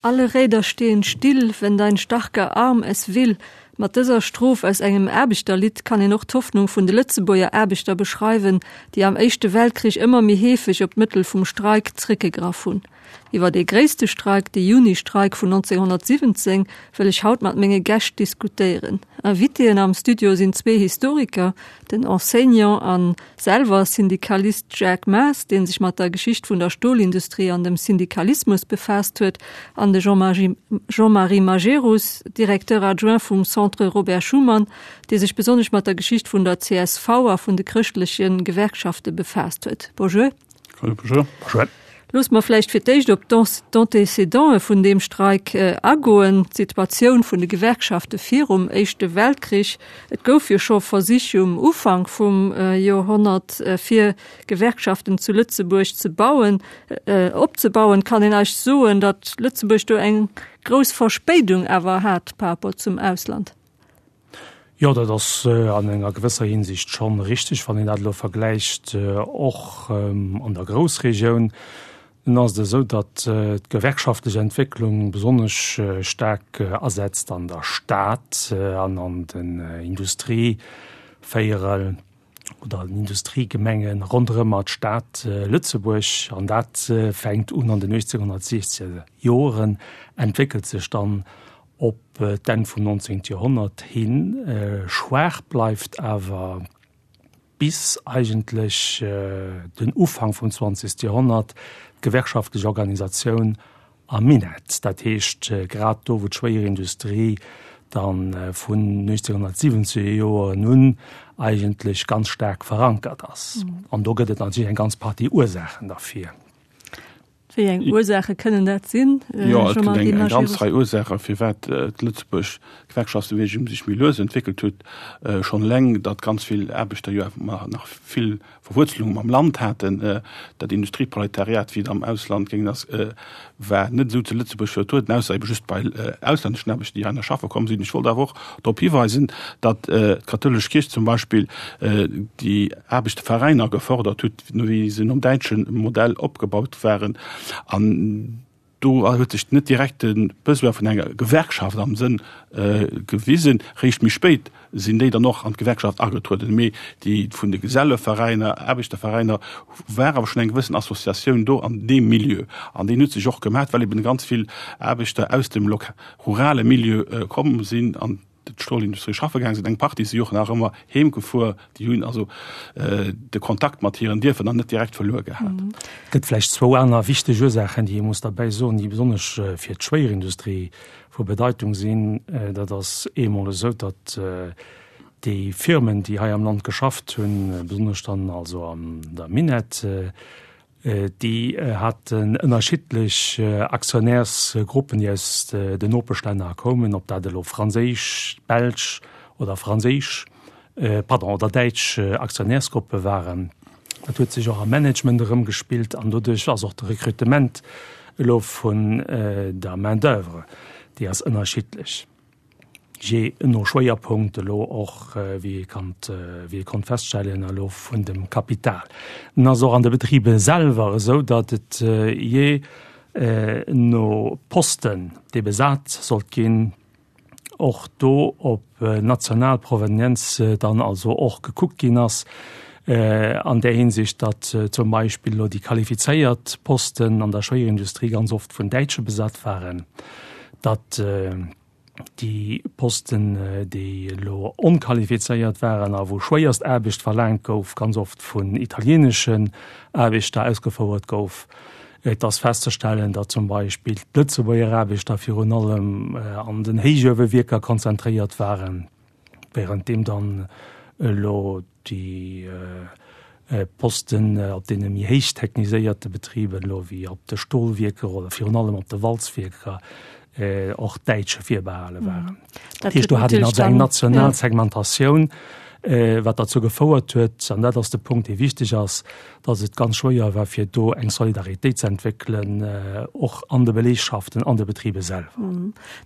Alle Räder stehen still, wenn dein starker Arm es will. Mat dëser Stroph aus engem Aarbechterlidd kann een och d'Hoffnung vun de Lëtzebuerger Aarbechter beschreiwen, déi am Éischte Weltkrich ëmmer méi heefeg op d'Mëttel vum Streik zréckgegraff hunn. Iwwer dee gréisste Streik, de Juni-Streik vun 1917, wëll ech haut mat menge Gäscht diskutéieren. Invitéen am Studio sinn zwee Historiker, den Enseignant an Selwer Syndikalist Jacques Maas, dee sech mat der Geschicht vun der Stolindustrie an dem Syndikalismus befaasst huet, an de Jean-Marie Majerus, Directeur adjoint vum Centre Robert Schuman, dee sech besonnesch mat der Geschicht vun der csv a vun de chrëschtleche Gewerkschafte befaasst huet. Bonjour. Bonjour. Bonjour. Loosse mer vläicht fir d'éischt op d'Antécédenten vun deem Streik agoen, d'Situatioun vun de Gewerkschafte virum Éischte Weltkrich. Et gouf jo scho Versich um Ufank vum Joerhonnert, fir Gewerkschaften zu Lëtzebuerg ze bauen, opzebauen. Kann een eis soen, datt Lëtzebuerg do eng grouss Verspéidung awer hat par rapport zum Ausland? Jo, dat ass an enger gewësser Hinsicht schonn richteg, wann een dat elo vergläicht och an der Groussregioun. Nun ass et esou, datt d'gewerkschaftlech Entwécklung besonnesch staark asetzt an der Stad an an den Industrievéierel oder den Industriegemenge ronderëmmer d'Stad Lëtzebuerg. An dat fänkt un an den 1860er Joren, entwéckelt sech dann op d'Enn vum 19. Joerhonnert hin, schwaach bleift awer bis eigentlech den Ufank vum 20. Joerhonnert d'gewerkschaftlech Organisatioun am Minett, dat heescht grad do wou d'Schwéierindustrie da vun 1970er Joeren un eigentlech ganz staark verankert ass. An do gëtt et natierlech eng ganz Partie Ursaachen derfir. Wéi eng Ursaache kënnen dat sinn? Jo, et gëtt eng ganz Rei Ursaachen, firwat d'Lëtzebuerg Gewerkschaftsbeweegung sech méi lues entwéckelt huet. Schonn eleng, datt ganz vill Aarbechter jo awer nach vill Verwuerzelunge mam Land haten. Dat Industrieproletariat, wéi et am Ausland géing ass, war net esou zu Lëtzebuerg vertrueden, ausser ebe just bei auslänneschen Aarbechter, déi heihinner schaffe komm sinn. Ech wollt awer och drop hiweisen, datt d'kathoulesch Kierch zum Beispill déi Aarbechterveräiner gefërdert huet, wéi se nom däitsche Modell opgebaut waren. An do huet sech net direkt de Besoin vun enger Gewerkschaft am Sënn gewisen. Réischt méi spéit sinn déi dann och an d'Gewerkschaft agetrueden. Mee déi vun de Geselleveräiner, Aarbechterveräiner war awer schonn eng gewëssen Associatioun do an deem Milieu. An deen huet sech och gemaat, well eben ganz vill Aarbechter aus dem rurale Milieu komm sinn an d'Stolindustrie schaffe gaang sinn. Eng Partie si och nach ëmmer heem gefuer. Déi hunn also de Kontakt mat hiren Dierfer dann net direkt verluer gehat. Et gëtt vläicht zwou aner wichteg Ursaachen, déi ee muss derbäi soen, déi besonnesch fir d'Schwéierindustrie vu Bedeitung sinn. Dat ass eemol esou, datt déi Firmen, déi hei am Land geschafft hunn, besonnesch dann also an der Minett, Déi haten ënnerschiddlech Aktionärsgruppen, déi aus den Nopeschlänner koumen, ob dat elo franséisch, belsch oder franséisch, pardon, oder däitsch Aktionärsgruppe waren. Dat huet sech och am Management erëmgespillt an doduerch ass och de Recrutement elo vun der Main-d'oeuvre, déi ass ënnerschiddlech. Jee no Schwéierpunkt elo och, wéi ee kannt, wéi ee konnt feststellen, elo vun dem Kapital. En ass och an de Betribe selwer esou, datt et jee no Posten, dee besat sollt ginn, och do op national Provenienz dann also och gekuckt ginn ass, an där Hinsicht, datt zum Beispill elo déi qualifizéiert Posten an der Schwéierindustrie ganz oft vun Däitsche besat waren, datt déi Posten, déi elo onqualifizéiert waren a wou schwéierst Aarbecht verlaangt gouf, ganz oft vun italieeneschen Aarbechter ausgefouert gouf. Et ass festzestellen, datt zum Beispill d'Lëtzebuerger Aarbechter virun allem an den Héichuewewierker konzentréiert waren, währenddeem dann elo déi Posten op deene méi héich techniséierte Betriben, elo wéi op de Stolwierker oder virun allem op de Walzwierker, och Däitsche virbehale waren. Dat heescht, do hat een also eng national Segmentatioun. Wat derzou gefouert huet, an dat ass de Punkt, dee wichteg ass, datt et ganz schwéier war, fir do eng Solidaritéit ze entwéckelen, och an de Belegschaften, an de Betribe selwer.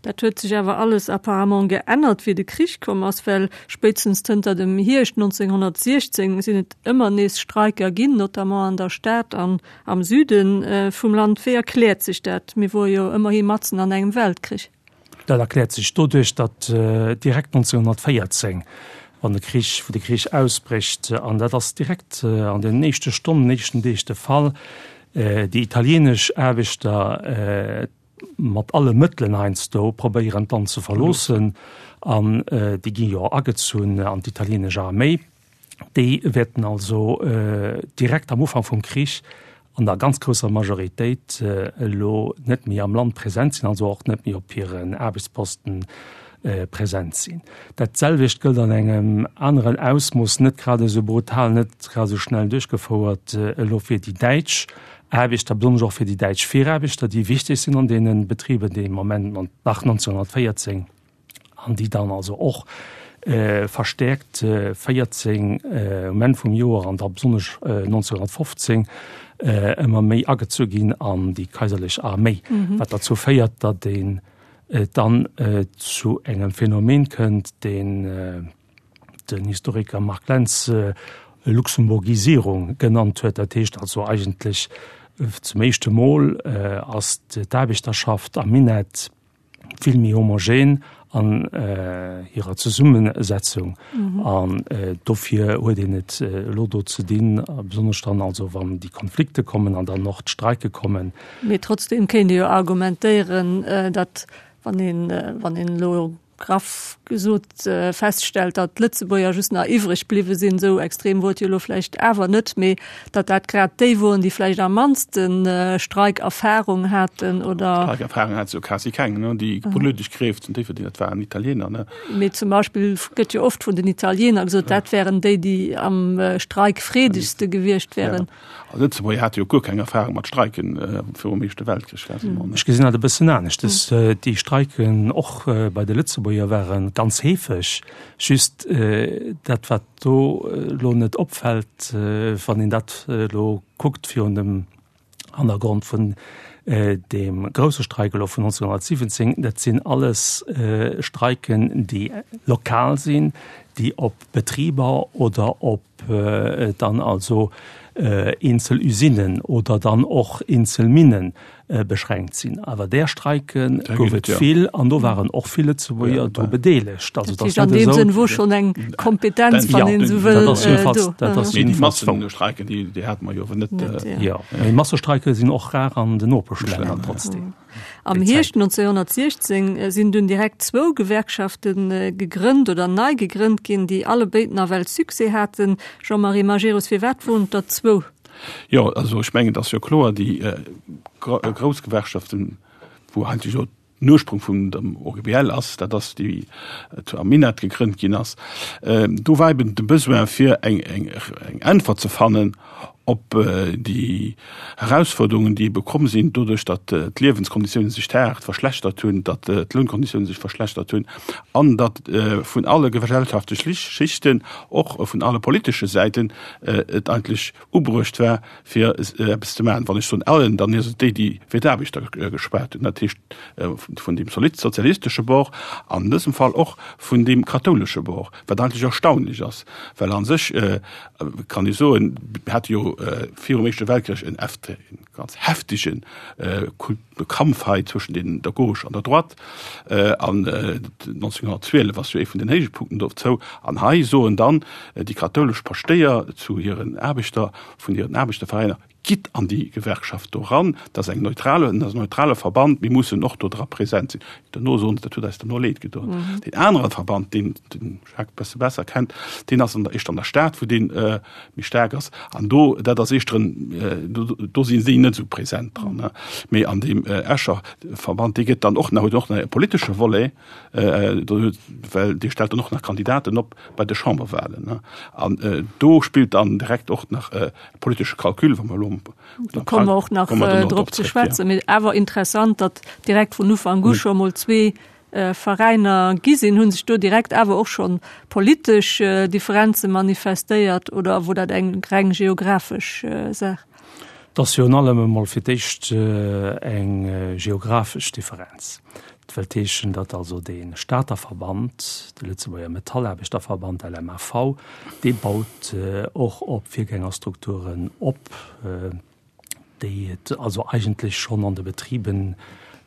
Dat huet sech awer alles apparemment geännert, wéi de Krich komm ass, well spéitstens zënter dem Hierscht 1916 sinn et ëmmer nees Streiker ginn, notamment an der Stad an am Süde vum Land. Wéi erkläert sech dat? Mir wore jo ëmmerhi matzen an engem Weltkrich. Dat erkläert sech doduerch, datt direkt 1914, wann de Krich, wou de Krich ausbrécht, an dat ass direkt an den éischte Stonnen, éischten Deeg de Fall, déi italienesch Aarbechter mat alle Mëttelen heiansdo probéieren d'Land ze verloossen, an déi gi jo agezunn an d'italienesch Arméi. Déi wäerten also direkt am Ufank vum Krich an der ganz grousser Majoritéit elo net méi am Land present sinn, also och net méi op hiren Aarbechtsposten present sinn. Dat selwecht gëllt an engem aneren Ausmooss, net grad esou brutal, net grad esou schnell duerchgefouert, elo fir déi däitsch Aarbechter, besonnesch och fir déi däitsch Viraarbechter, déi wichteg sinn an deene Betriben dee Moment nach 1914. an déi dann also och verstäerkt 14 um Enn vum Joer an da besonnesch 1915 ëmmer méi agezu ginn an déi kaiserlech Arméi, wat derzou féiert, datt een dann zu engem Phänomen kënnt, deen den Historiker Marc Lentz Luxemburgisierung genannt huet. Dat heescht also eigentlech zum éischte Mol ass d'Aarbechterschaft am Minett, vill méi homogen an hirer Zesummesetzung. An dofir huet een et elo do ze dinn, besonnesch dann also wann déi Konflikte kommen an dann och d'Streike kommen. Mee trotzdem kéint ee jo argumentéieren, datt wann een, wann een elo graff gesot feststellt, datt d'Lëtzebuerger just nach iwwreg bliwwe sinn, esou extrem wor et jo elo vläicht awer net, mee datt dat grad déi woren, déi vläicht am mannste Streikerfahrung haten oder. Streikerfahrung hat se jo quasi keng, ne? Déi politesch Kräft zu Déifferdeng, dat waren Italiener, ne? Mee zum Beispill gëtt jo oft vun den Italiener gesot, dat wären déi, déi am streikfreedegste gewiescht wären. Ja. A Lëtzebuerger hate jo guer keng Erfahrung mat Streiken virum Éischte Weltkrich quasiment, ne? Ech gesinn dat e bëssen anescht. Déi Streiken och bei de Lëtzebuerger ware ganz heefeg. Just dat, wat do elo net opfält, wann een dat elo kuckt virun dem Hannergrond vun deem grousse Streik elo vun 1917, dat sinn alles Streiken, déi lokal sinn, déi op Betriber oder op dann also eenzel Usinen oder dann och eenzel Minne beschränkt sinn. Awer där Streike gouf et vill an do waren och vill Lëtzebuerger dru bedeelegt. Also dat ass net esou. An deem Sënn wor schonn eng Kompetenz, wann een esou wëll, do. Dat ass jedenfalls. Mee déi Massestreiken, déi hate mer jo awer net. Jo, mee Massestreike sinn och rar an den Nopeschlänner trotzdem. Am Hierscht 1916 sinn dunn direkt zwou Gewerkschafte gegrënnt oder nei gegrënnt ginn, déi allebéid nawell Succès haten. Jean-Marie Majerus, firwat woren et der zwou? Jo, also ech mengen, et ass jo kloer, déi grouss Gewerkschaften, wou eigentlech jo den Ursprung vun dem OGBL ass, dat ass déi zu am Minett gegrënnt ginn ass, do war eben de Besoin fir eng Äntwert ze fannen op déi Erausforderungen, déi ebe komm sinn doduerch, datt d'Liewenskonditiounen sech haart verschlechtert hunn, datt d'Lounkonditiounen sech verschlechtert hunn an datt vun alle gesellschaftleche Schichten, och vun alle politesche Säiten et eigentlech ubruecht war, fir eppes ze maachen. Wann ech soen allen, dann ass et déi, déi fir d'Aarbechter geschwat hunn, dat heescht vun deem sozialistesche Bord an dësem Fall och vun deem kathoulesche Bord, wat eigentlech erstaunlech ass, well a sech kann ee soen, mir hate jo virum Éischte Weltkrich en ganz heftege Kampf hei zwëschen den der Gauche an der Droite an 1912 ass jo ee vun den Héichpunkten dozou. An hei soen dann déi kathoulesch Paschtéier zu hiren Aarbechter vun hiren Aarbechterveräiner, Gitt an déi Gewerkschaft do eran, dat ass eng neutrale, dat ass en neutrale Verband, mir mussen och do dra present sinn. Duerno soen se, dat huet eis duerno leed gedoen. Deen anere Verband, deen den Jacques e bësse besser kennt, deen ass an der, éischter an der Stad, wou dee méi staark ass. An do, dat ass éischter en, do, do sinn si net esou present dran. Mee an deem Escher Verband, dee gëtt dann och nach, huet och nach e politesche Volet, do huet, well dee stellt dann och nach Kandidaten op bei de Chamberwahlen. An do spillt dann direkt och nach e politesche Calcul, wa mer elo Do komme mer och nach drop ze schwätzen. Mee awer interessant, datt direkt vun Ufank u scho mol zwee. Veräiner gi sinn. Hu sech do direkt awer och schonn politesch Differenze manifestéiert oder wor dat eng reng geographesch Saach? Et ass virun allem emol fir d'éischt eng geographesch Differenz. Dat wëllt heeschen, datt also dee Stater Verband, de Lëtzebuerger Metallaarbechterverband, LMAV, dee baut och op Virgängerstrukturen op, déi et also eigentlech schonn an de Betriben,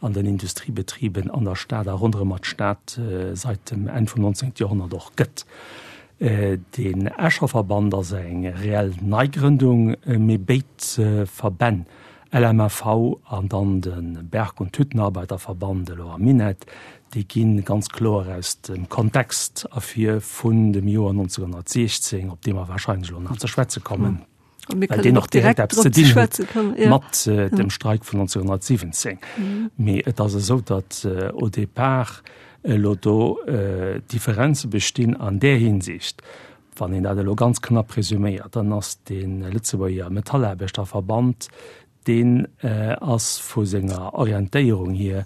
an den Industriebetriben an der Stad a ronderëmmer d'Stad seit dem Enn vum 19. Joerhonnert och gëtt. Deen Escher Verband ass eng reell Neigrëndung, mee béid Verbänn, LMAV an dann de Berg und Hüttenarbeiterverband, elo am Minett, déi gi ganz kloer aus dem Kontext ervir vun dem Joer 1916, op dee mer warscheinlech elo nach ze schwätze kommen. Well deen och direkt eppes ze dinn huet mat dem Streik vun 1917. Mee et ass esou, datt au départ elo do Differenze bestinn an där Hinsicht, wann een dat elo ganz knapp resuméiert, dann ass de Lëtzebuerger Metallaarbechterverband, Deen ass vu senger Orientéierung hier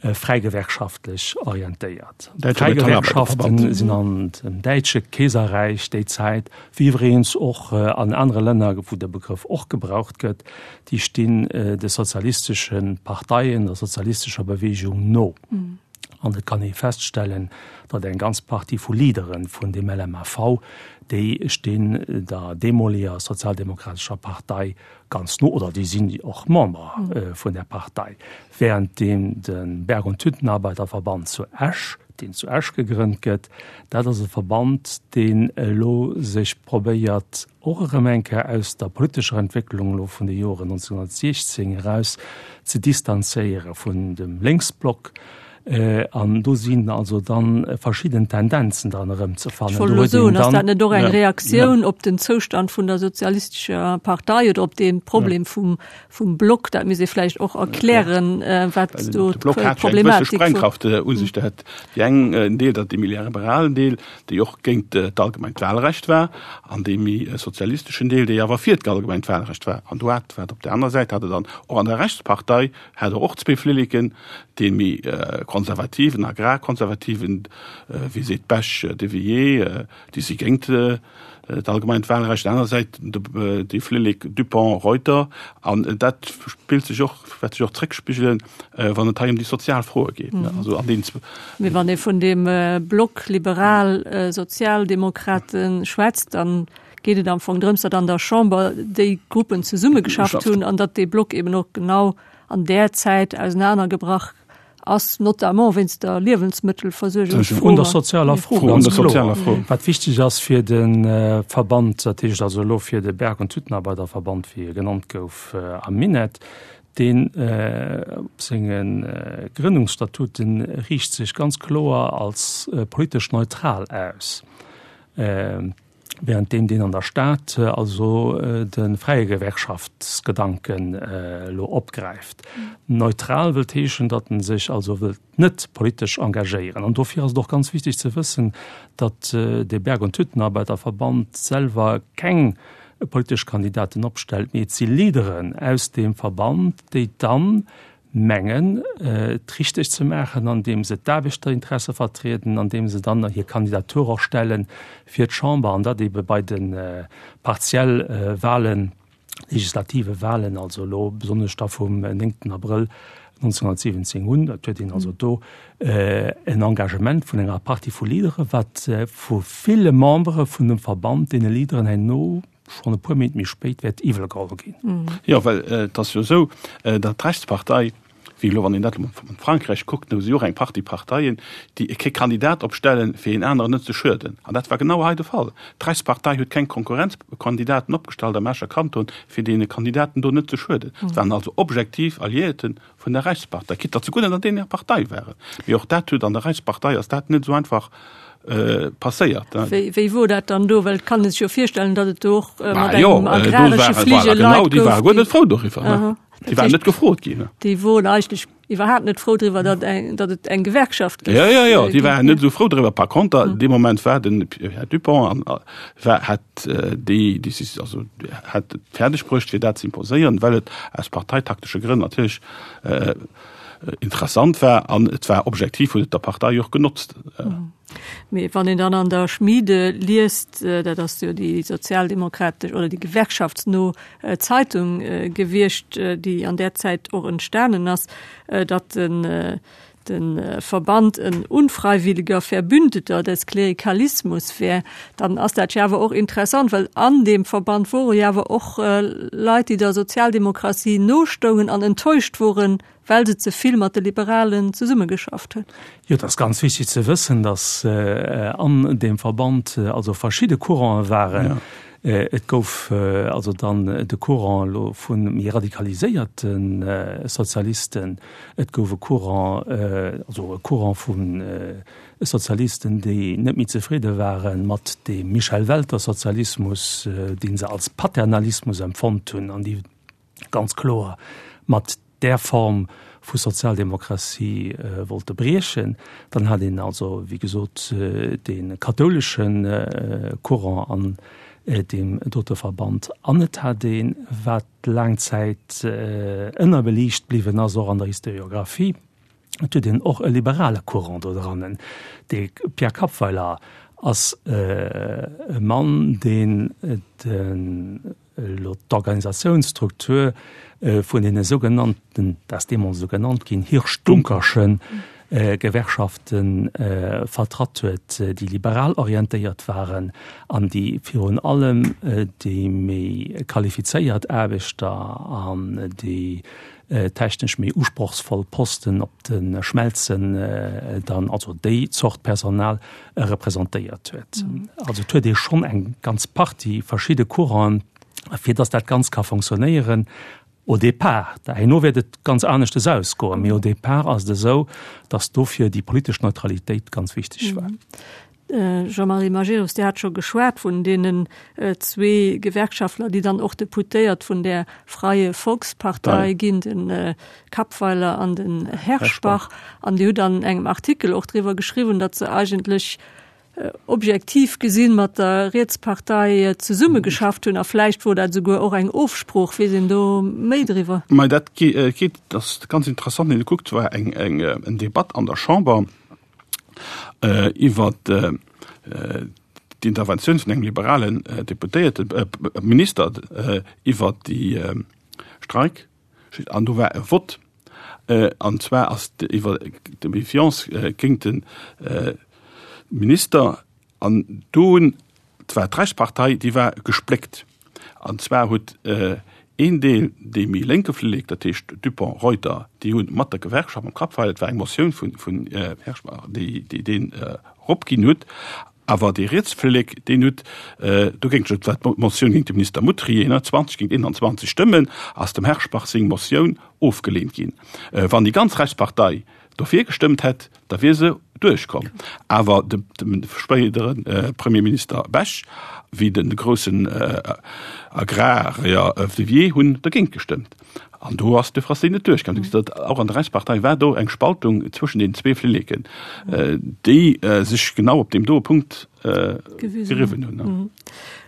fräigewerkschaftlech orientéiert. D'Fräigewerkschaften sinn an dem däitsche Keeserräich déi Zäit, wéi iwwregens och an anere Länner, wou de Begrëff och gebraucht gëtt, déi stinn de sozialistesche Parteien, der sozialistescher Beweegung no. An et kann ee feststellen, datt eng ganz Partie vu Leadere vun dem LMAV, déi stinn der deemoleger sozialdemokratescher Partei ganz no, oder déi sinn och Member vun där Partei, währenddeem de Berg und Hüttenarbeiterverband zu Esch, deen zu Esch gegrënnt gëtt, dat ass e Verband, deen elo sech probéiert, och erëm eng Kéier aus der politescher Entwécklung elo vun de Joren 1916 eraus ze distanzéiere vun dem Lénksblock. An do sinn also dann verschidden Tendenzen dran erëmzefannen. Ech wollt elo soen, ass dat net och eng Reaktioun op den Zoustand vun der sozialistescher Partei oder op dee Problem vum, vum Block? Dat misst ee vläicht och erklären, wat do De Block hat jo eng gewësse d'Problematik wor. Sprengkraft u sech. Dat hat déi eng en Deel, dat dee méi liberalen Deel, déi och géint d'allgemengt Wahlrecht war, an dee méi sozialisteschen Deel, dee awer fir d'allgemengt Wahlrecht war. An do hat, wat op där aner Säit hat et dann och an der Rechtspartei hat och zwee Flilleken, dee méi konservativen, agrarkonservativen, wéi seet d'Bech, de Villiers, déi si géint d'allgemeint Wahlrecht, aner Säit de Flillek Dupong, Reuter. An dat spillt sech och, wäert sech och zréckspigelen, wann et hei ëm déi sozial Froe geet. Also an deenen. Mee wann ee vun deem Block liberal-sozialdemokrate schwätzt, dann geet et am Fong drëms, datt an der Chamber déi Gruppen zesummegeschafft hunn an datt dee Block eben och genau an där Zäit ausenanergebrach ass, notamment wéinst der Liewensmëttelversuergungsfro. Un der sozialer Fro, ganz kloer. Wat wichteg ass fir de Verband, dat heescht also elo fir de Berg und Hüttenarbeiterverband, wéi e genannt gouf am Minett, deen op senge Grënnungsstatuten riicht sech ganz kloer als politesch neutral aus. Während deem deen an der Stad also de fräie Gewerkschaftsgedanken elo opgräift. Neutral wëllt heeschen, datt en sech also wëllt net politesch engagéieren. An dofir ass et och ganz wichteg ze wëssen, datt de Berg und Hüttenarbeiterverband selwer keng politesch Kandidaten opstellt, mee et si Leaderen aus deem Verband, déi dann mengen, et richteg ze maachen, andeem se d'Aarbechterinteresse vertrieden, andeem se dann hir Kandidatur och stelle fir d'Chamber, an dat ebe bei de partielle Wahlen, legislative Wahlen, also elo besonnesch da vum 9. Abrëll 1917 un. Dat huet een also do en Engagement vun enger Partie vu Leadere, wat vu ville Membere vun dem Verband deene Leaderen herno schonn e puer Méint méi spéit wäert iwwel geholl ginn. Jo, well et ass jo esou, datt d'Rechtspartei, wéi elo wann een dat elo an Frankräich kuckt, do si jo och eng Partie Parteien, déi kee Kandidat opstellen, fir een aneren net ze schueden. An dat war genau hei de Fall. D'Rechtspartei huet keng Konkurrenzkandidaten opgestallt am Escher Kanton, fir deene Kandidaten do net ze schueden. Et waren also objektiv Alliéierten vun der Reichspartei, quitte datt se guer net an deene Partei waren. Mee och dat huet an der Reichspartei ass dat net esou einfach passéiert. Wéi, wéi wor dat dann do? Well et kann ee sech jo virstellen, datt et do och mat engem agraresche Fligel Leit gouf. Déi ware guer net frou doriwwer. Déi waren net gefrot ginn. Déi woren eigentlech iwwerhaapt net frou driwwer, datt eng, datt et eng Gewerkschaft géif. Jo, jo, jo, déi waren net esou frou driwwer. Par conter, dee Moment war den Här Dupong an war, hat déi Décision, also hat et fäerdeg bruecht, fir dat ze imposéieren, well et aus parteitaktesche Grënn natierlech. interessant war an et war objektiv huet et der Partei och genotzt. Mee wann een dann an der Schmiede liest, dat ass jo déi sozialdemokratesch oder déi gewerkschaftsno Zeitung gewiescht, déi an där Zäit och entstanen ass, datt den de Verband en unfreiwilliger Verbündeter des Klerikalismus wär, dann ass dat jo awer och interessant, well an deem Verband wore jo awer och Leit, déi der Sozialdemokratie nostoungen an enttäuscht woren, well se ze vill mat de Liberalen zesummegeschafft hunn. Jo, et ass ganz wichtig ze wëssen, datt an deem Verband also verschidde Courante waren. Et gouf also dann de Courant elo vu méi radikaliséierte Sozialisten, et gouf e Courant, also e Courant vu Sozialisten, déi net méi zefridde ware mat deem Michel Welter-Sozialismus, dee se als Paternalismus empfonnt hunn an déi ganz kloer mat där Form vu Sozialdemokratie wollte briechen. Dann hat een also, wéi gesot, dee kathoulesche Courant an deem dote Verband. An et hat een, wat laang Zäit ënnerbeliicht bliwwen ass, och an der Historiographie, et huet een och e liberale Courant do drannen. De Pierre Kappweiler ass e Mann, deen de Elo d'Organisatiounsstruktur vun deene sougenannten, dat ass deemools esou genannt ginn, Hirsch-Dunkerschen Gewerkschafte vertratt huet, déi liberal orientéiert waren an déi virun allem déi méi qualifizéiert Aarbechter an déi technesch méi usprochsvoll Posten op de Schmelzen dann, also déi Zort Personal representéiert huet. Also et huet ee schonn eng ganz Partie verschidde Couranten, fir datt dat Ganzt ka fonctionnéieren. Au départ, herno wäert et ganz aneschtes ausgoen, mee au départ ass et esou, datt dofir déi politesch Neutralitéit ganz wichteg war. Jean-Marie Majerus, Dir hat scho geschwat vun deenen zwee Gewerkschaftler, déi dann och Deputéiert vun där Freie Volkspartei ginn, de Kappweiler an den Herschbach. An Dir hutt an engem Artikel och driwwer geschriwwen, datt se eigentlech objektiv gesinn mat der Rietspartei zesummegeschafft hunn. A vläicht wor dat esouguer och eng Ofsprooch. Weess een do méi driwwer? Mä dat geet, dat ass ganz interessant, wann ee kuckt, war eng eng Debatt an der Chamber, iwwer d'Interventioun vun engem liberalen Deputéierten, Minister iwwer déi Streik, an do war e Vott, an zwar ass iwwer de Méfiance géint de Minister An do hunn, et war d'Rechtspartei, déi war gespléckt. An zwar huet een Deel, dee méi lénke Flillek, dat heescht Dupong, Reuter, déi hu mat der Gewerkschaft, mam Kappfeil, et war eng Motioun vun, vun Herschbach, déi, déi deen eropginn huet. Awer dee rietse Flillek, deen huet dogéint, et war d'Motioun géint de Minister Mutrier, ne, 20 géint 21 Stëmmen ass dem Herschbach seng Motioun ofgeleent ginn. Wann déi ganz Rechtspartei dofir gestëmmt hätt, da wier se duerchkomm. Awer de spéidere Premierminister Bech wéi de groussen Agrarier Vivier hunn dergéint gestëmmt. An do ass de Frassi net duerchkomm. Du gesitt, och an der Rechtspartei war do eng Spaltung zwëschen den zwee Flilleken, déi sech genau op deem doe Punkt geriwwen hunn.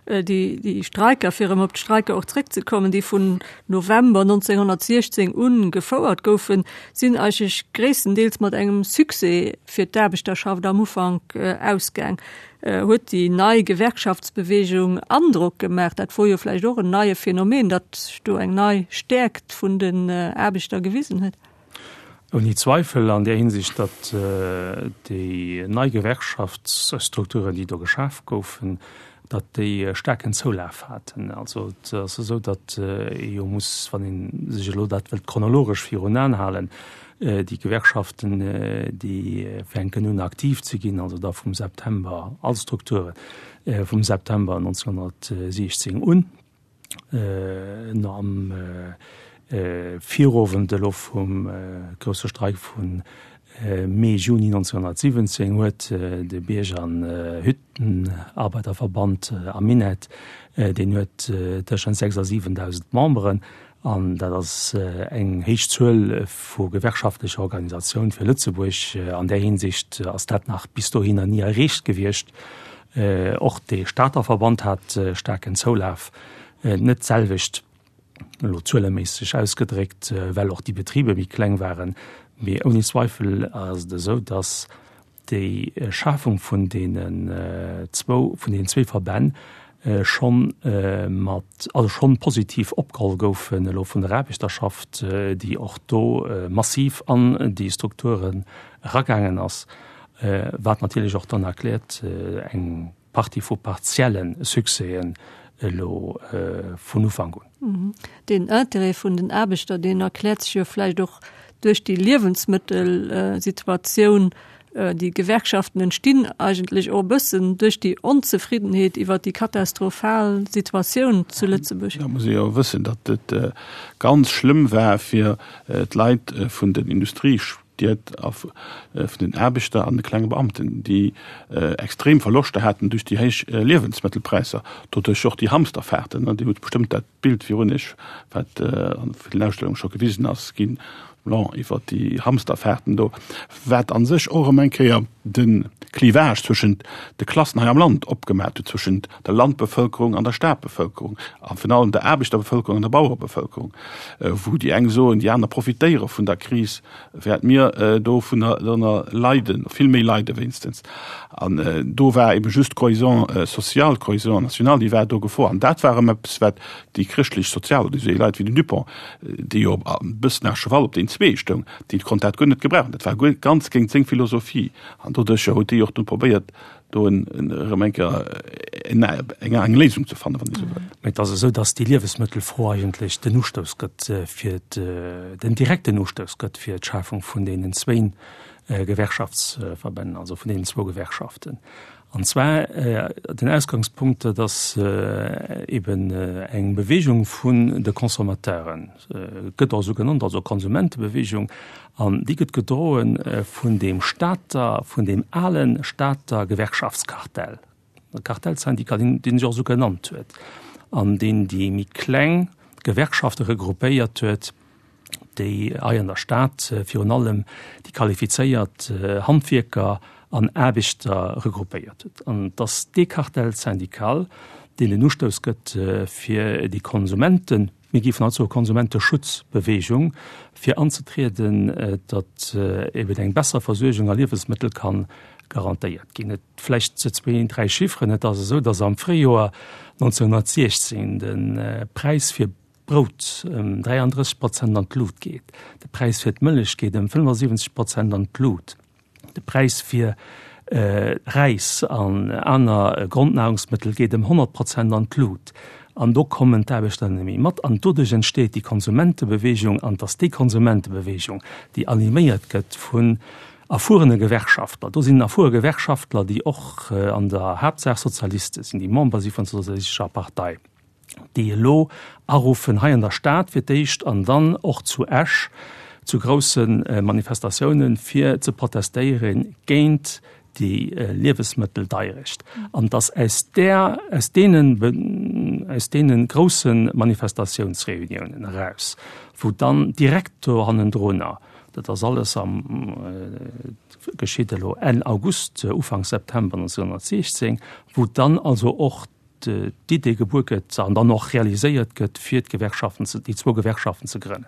Déi Streiker, fir erëm op d'Streiker och zréckzekommen, déi vun November 1916 un gefouert goufen, sinn eigentlech gréisstendeels mat engem Succès fir d'Aarbechterschaft am Ufank ausgaang. Huet déi nei Gewerkschaftsbewegung Androck gemaach? Dat wor jo vläicht och en neie Phänomen, datt sech do eng nei Stäerkt vun den Aarbechter gewisen huet. Ouni Zweifel an där Hinsicht, datt déi nei Gewerkschaftsstrukturen, déi do geschaf goufen, datt déi staarken Zoulaf haten. Also et ass esou, datt ee jo muss, wann ee sech elo dat wëllt chronologesch virun Aen halen, déi Gewerkschaften, déi fänken un aktiv ze ginn, also da vum September, all Strukture vum September 1916 un, No am Virowend elo vum grousse Streik vu Mee, Juni 1917 huet de Bierg an Hüttenarbeiterverband am Minett, deen huet tëschent 6 a 7.000 Memberen, an dat ass eng héich Zuel vu gewerkschaftlecher Organisatioun fir Lëtzebuerg. An där Hinsicht ass dat nach bis dohinner ni erreecht gewiescht. Och de Stater Verband hat staarken Zoulaf, net d'selwecht, elo zueleméisseg ausgedréckt, well och déi Betriber méi kleng waren. Mee ouni Zweifel ass et esou, datt déi Schafung vun deenen zwou, vun deenen zwee Verbänn schonn mat, also schonn positiv opgeholl goufen elo vun der Aarbechterschaft, déi och do massiv an déi Strukturen eragaangen ass, wat natierlech och dann erkläert eng Partie vu partielle Succèsen elo vun Ufank un. Deen Intérêt vun den Aarbechter, deen erkläert sech jo vläicht och duerch déi Liewensmëttelsituatioun. Déi Gewerkschaften entstinn eigentlech och e bëssen duerch déi Onzefriddenheet iwwer déi katastrophal Situatioun zu Lëtzebuerg. Da muss ee jo wëssen, datt et ganz schlëmm war fir d'Leit vun den Industriestied a vun den Aarbechter an de klenge Beamten, déi extrem Verloschter haten duerch déi héich Liewensmëttelpräisser, doduerch och déi Hamsterfahrten. Dir hutt bestëmmt dat D'Bild virun Iech, wat an villen Ausstellunge scho gewisen ass ginn, blanc, iwwer déi Hamsterfahrten do, wat a sech och erëm eng Kéier de Clivage zwëschent de Klassen hei am Land opgemaat huet, zwëschent der Landbevëlkerung an der Stadbevëlkerung a virun allem der Aarbechterbevëlkerung an der Bauerebevëlkerung, wou déi eng soen, déi aner profitéiere vun der Kris, während mir dovunner leiden, vill méi leide wéinstens. An do war ebe just d'Cohésion sociale, d'Cohésion nationale, déi war do gefor. An dat war erëm eppes, wat déi chrëschtlech-sozial oder esou Leit wéi den Dupong, dee jo e bëssen à cheval op deen zwee stoung, dee konnt dat guer net gebrauchen. Dat war guer ganz géint seng Philosophie. An doduercher huet déi och dunn probéiert, do erëm eng Kéier eng Léisung ze fannen, wann ee sou wëll. Mä et ass esou, datt déi Liewesmëttelfro eigentlech den Ustouss gëtt fir den direkten Ustouss gëtt fir d'Schafung vun deenen zwéin Gewerkschaftsverbänn, also vun deenen zwou Gewerkschaften. An zwar den Ausgangspunkt, dat ass eben eng Bewegung vun de Consommateuren, gëtt och esou genannt, also Konsumentebewegung, an déi gëtt gedroe vun deem Stater, vun deem ale Stater Gewerkschaftskartell, Kartellsyndikat, deen sech och esou genannt huet an deen déi méi kleng Gewerkschafte regroupéiert huet, déi hei an der Stad virun allem déi qualifizéiert Handwierker an Aarbechter regroupéiert huet. An et ass dee Cartel syndical, deen den Ustouss gëtt fir déi Konsumenten, mir géifen haut soe Konsumenteschutzbewegung, fir anzetrieden, datt eben eng besser Versuergung a Liewesmëttel ka garantéiert ginn. Et vläicht zwee, dräi Chifferen, Et ass esou, datt am Fréijoer 1916 de Präis fir Brout ëm 33 Prozent an d'Lut geet, de Präis fir d'Mëllech geet ëm 75 Prozent an d'Lut, de Präis fir Räis an aner Grondnahrungsmëttel geet ëm 100 Prozent an d'Lut. An do kommen d'Aarbechter net méi mat. An doduerch entsteet déi Konsumentebewegung. An et ass déi Konsumentebewegung, déi animéiert gëtt vun erfuerene Gewerkschaftler. Do sinn erfuere Gewerkschaftler, déi och an der Haaptsaach Sozialiste sinn, déi Member si vun der Sozialistescher Partei. déi elo aruffen, hei an der Stad fir d'éischt an dann och zu Esch zu grousse Manifestatiounen, fir ze protestéiere géint déi Liewesmëtteldeierecht. An dass aus där, aus deenen, aus deene grousse Manifestatiounsreuniounen eraus, wou dann direkt do hannendrunner, dat ass alles am, geschitt elo Enn August, Ufank September 1916, wou dann also och d'Idee gebuer gëtt an dann och realiséiert gëtt, fir d'Gewerkschaften ze, déi zwou Gewerkschaften ze grënnen.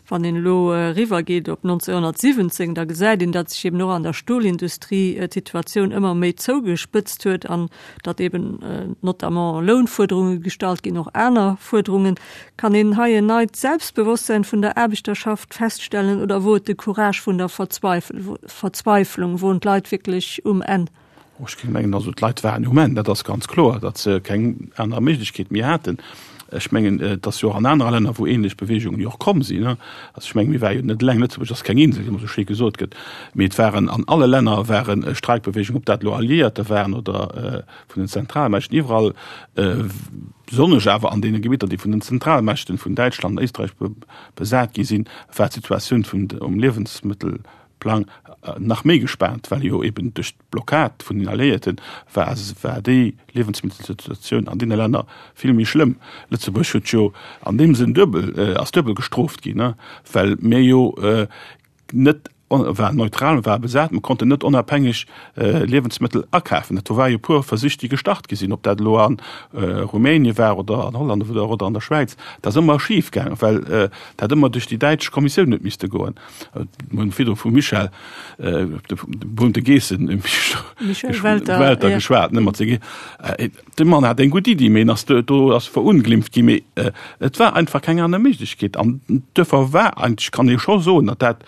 Wann een elo eriwwergeet op 1917, da gesäit een, datt sech eben och an der Stolindustrie d'Situatioun ëmmer méi zougespëtzt huet an datt eben notamment Lounfuerderunge gestallt ginn, och aner Fuerderungen. Kann een hei en neit Selbstbewosstsein vun der Aarbechterschaft feststellen oder wor et de Courage vun der Verzweiflung, woren d'Leit wierklech um Enn? Ech géing mengen, also d'Leit waren um Enn, dat ass ganz kloer, datt se keng aner Méiglechkeet méi haten. Ech mengen, et ass jo och an anere Länner, wou ähnlech Beweegungen jo och komm sinn. Also ech mengen, mir ware jo net eleng, Lëtzebuerg ass keng Insel, wéi ëmmer esou schéi gesot gëtt, mee et waren an alle Länner ware Streikbeweegungen, ob dat elo Alliéierter waren oder vun den Zentralmächten, iwwerall, besonnesch awer an deene Gebitter, déi vun den Zentralmächten, vun Däitschland an Éisträich besat gi sinn, war d'Situatioun vun um Liewensmëttel Plang nach méi gespaant, well jo eben duerch d'Blockad vun den Alliéierten war war déi Liewensmëttelsituatioun an deene Länner vill méi schlëmm. Lëtzebuerg huet jo an deem Sënn duebel, ass duebel gestrooft ginn, well mir jo net. war neutral, war besat, mer konnten net onabhängeg Liewensmëttel akafen. Dat do war jo e puer Versich, déi gestart gi sinn, ob dat elo a Rumänien war oder an Holland oder oder an der Schwäiz, dat ass ëmmer schif gaangen, well dat ëmmer duerch déi däitsch Kommissioun huet misste goen. Mir hunn virdru vum Michel, dem berühmte Geessen, Michel Welter geschwat, ne, mat senge. De Mann hat eng gutt Iddi, mee en ass do, do ass verunglimpft ginn. Mee et war einfach keng aner Méiglechkeet. An duerfir war eigentlech, kann ee scho soen, datt dat,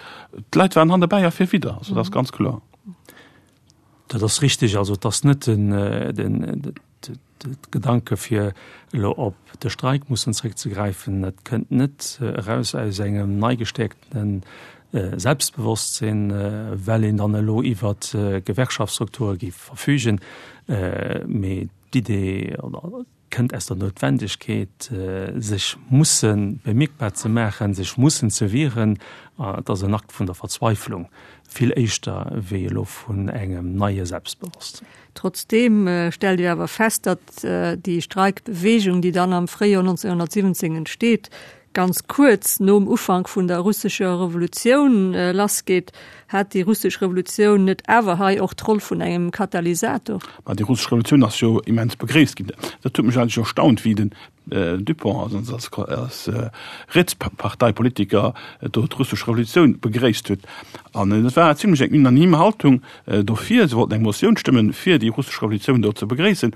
d'Leit waren hannerbäi a fir widder. Also dat ass ganz kloer. Dat ass richtig. Also et ass net den, den, de Gedanke fir elo op de Streik mussen zréckzegräifen. Dat kënnt net eraus aus engem nei gestäerkten Selbstbewosstsinn, well een dann elo iwwer Gewerkschaftsstrukture géif verfügen, mee d'Idee kënnt aus der Noutwendegkeet, sech musse bemierkbar ze maachen, sech mussen ze wieren. Et ass en Akt vun der Verzweiflung, vill éischter wéi elo vun engem neie Selbstbewosstsinn. Trotzdeem stellt Dir awer fest, datt déi Streikbewegung, déi dann am Fréijoer 1917 entsteet, ganz kuerz nom Ufank vun der russescher Revolutioun lassgeet. Hat déi russesch Revolutioun net awer hei och d'Roll vun engem Katalysator? Ma déi russesch Revolutioun ass jo immens begréisst ginn. Dat huet mech eigentlech erstaunt, wéi den Dupong als, als, als Rietsparteipolitiker do d'russesch Revolutioun begréisst huet. An et war zimlech eng unanime Haltung dofir. Se wollten eng Motioun stëmmen, fir déi russesch Revolutioun do ze begréissen.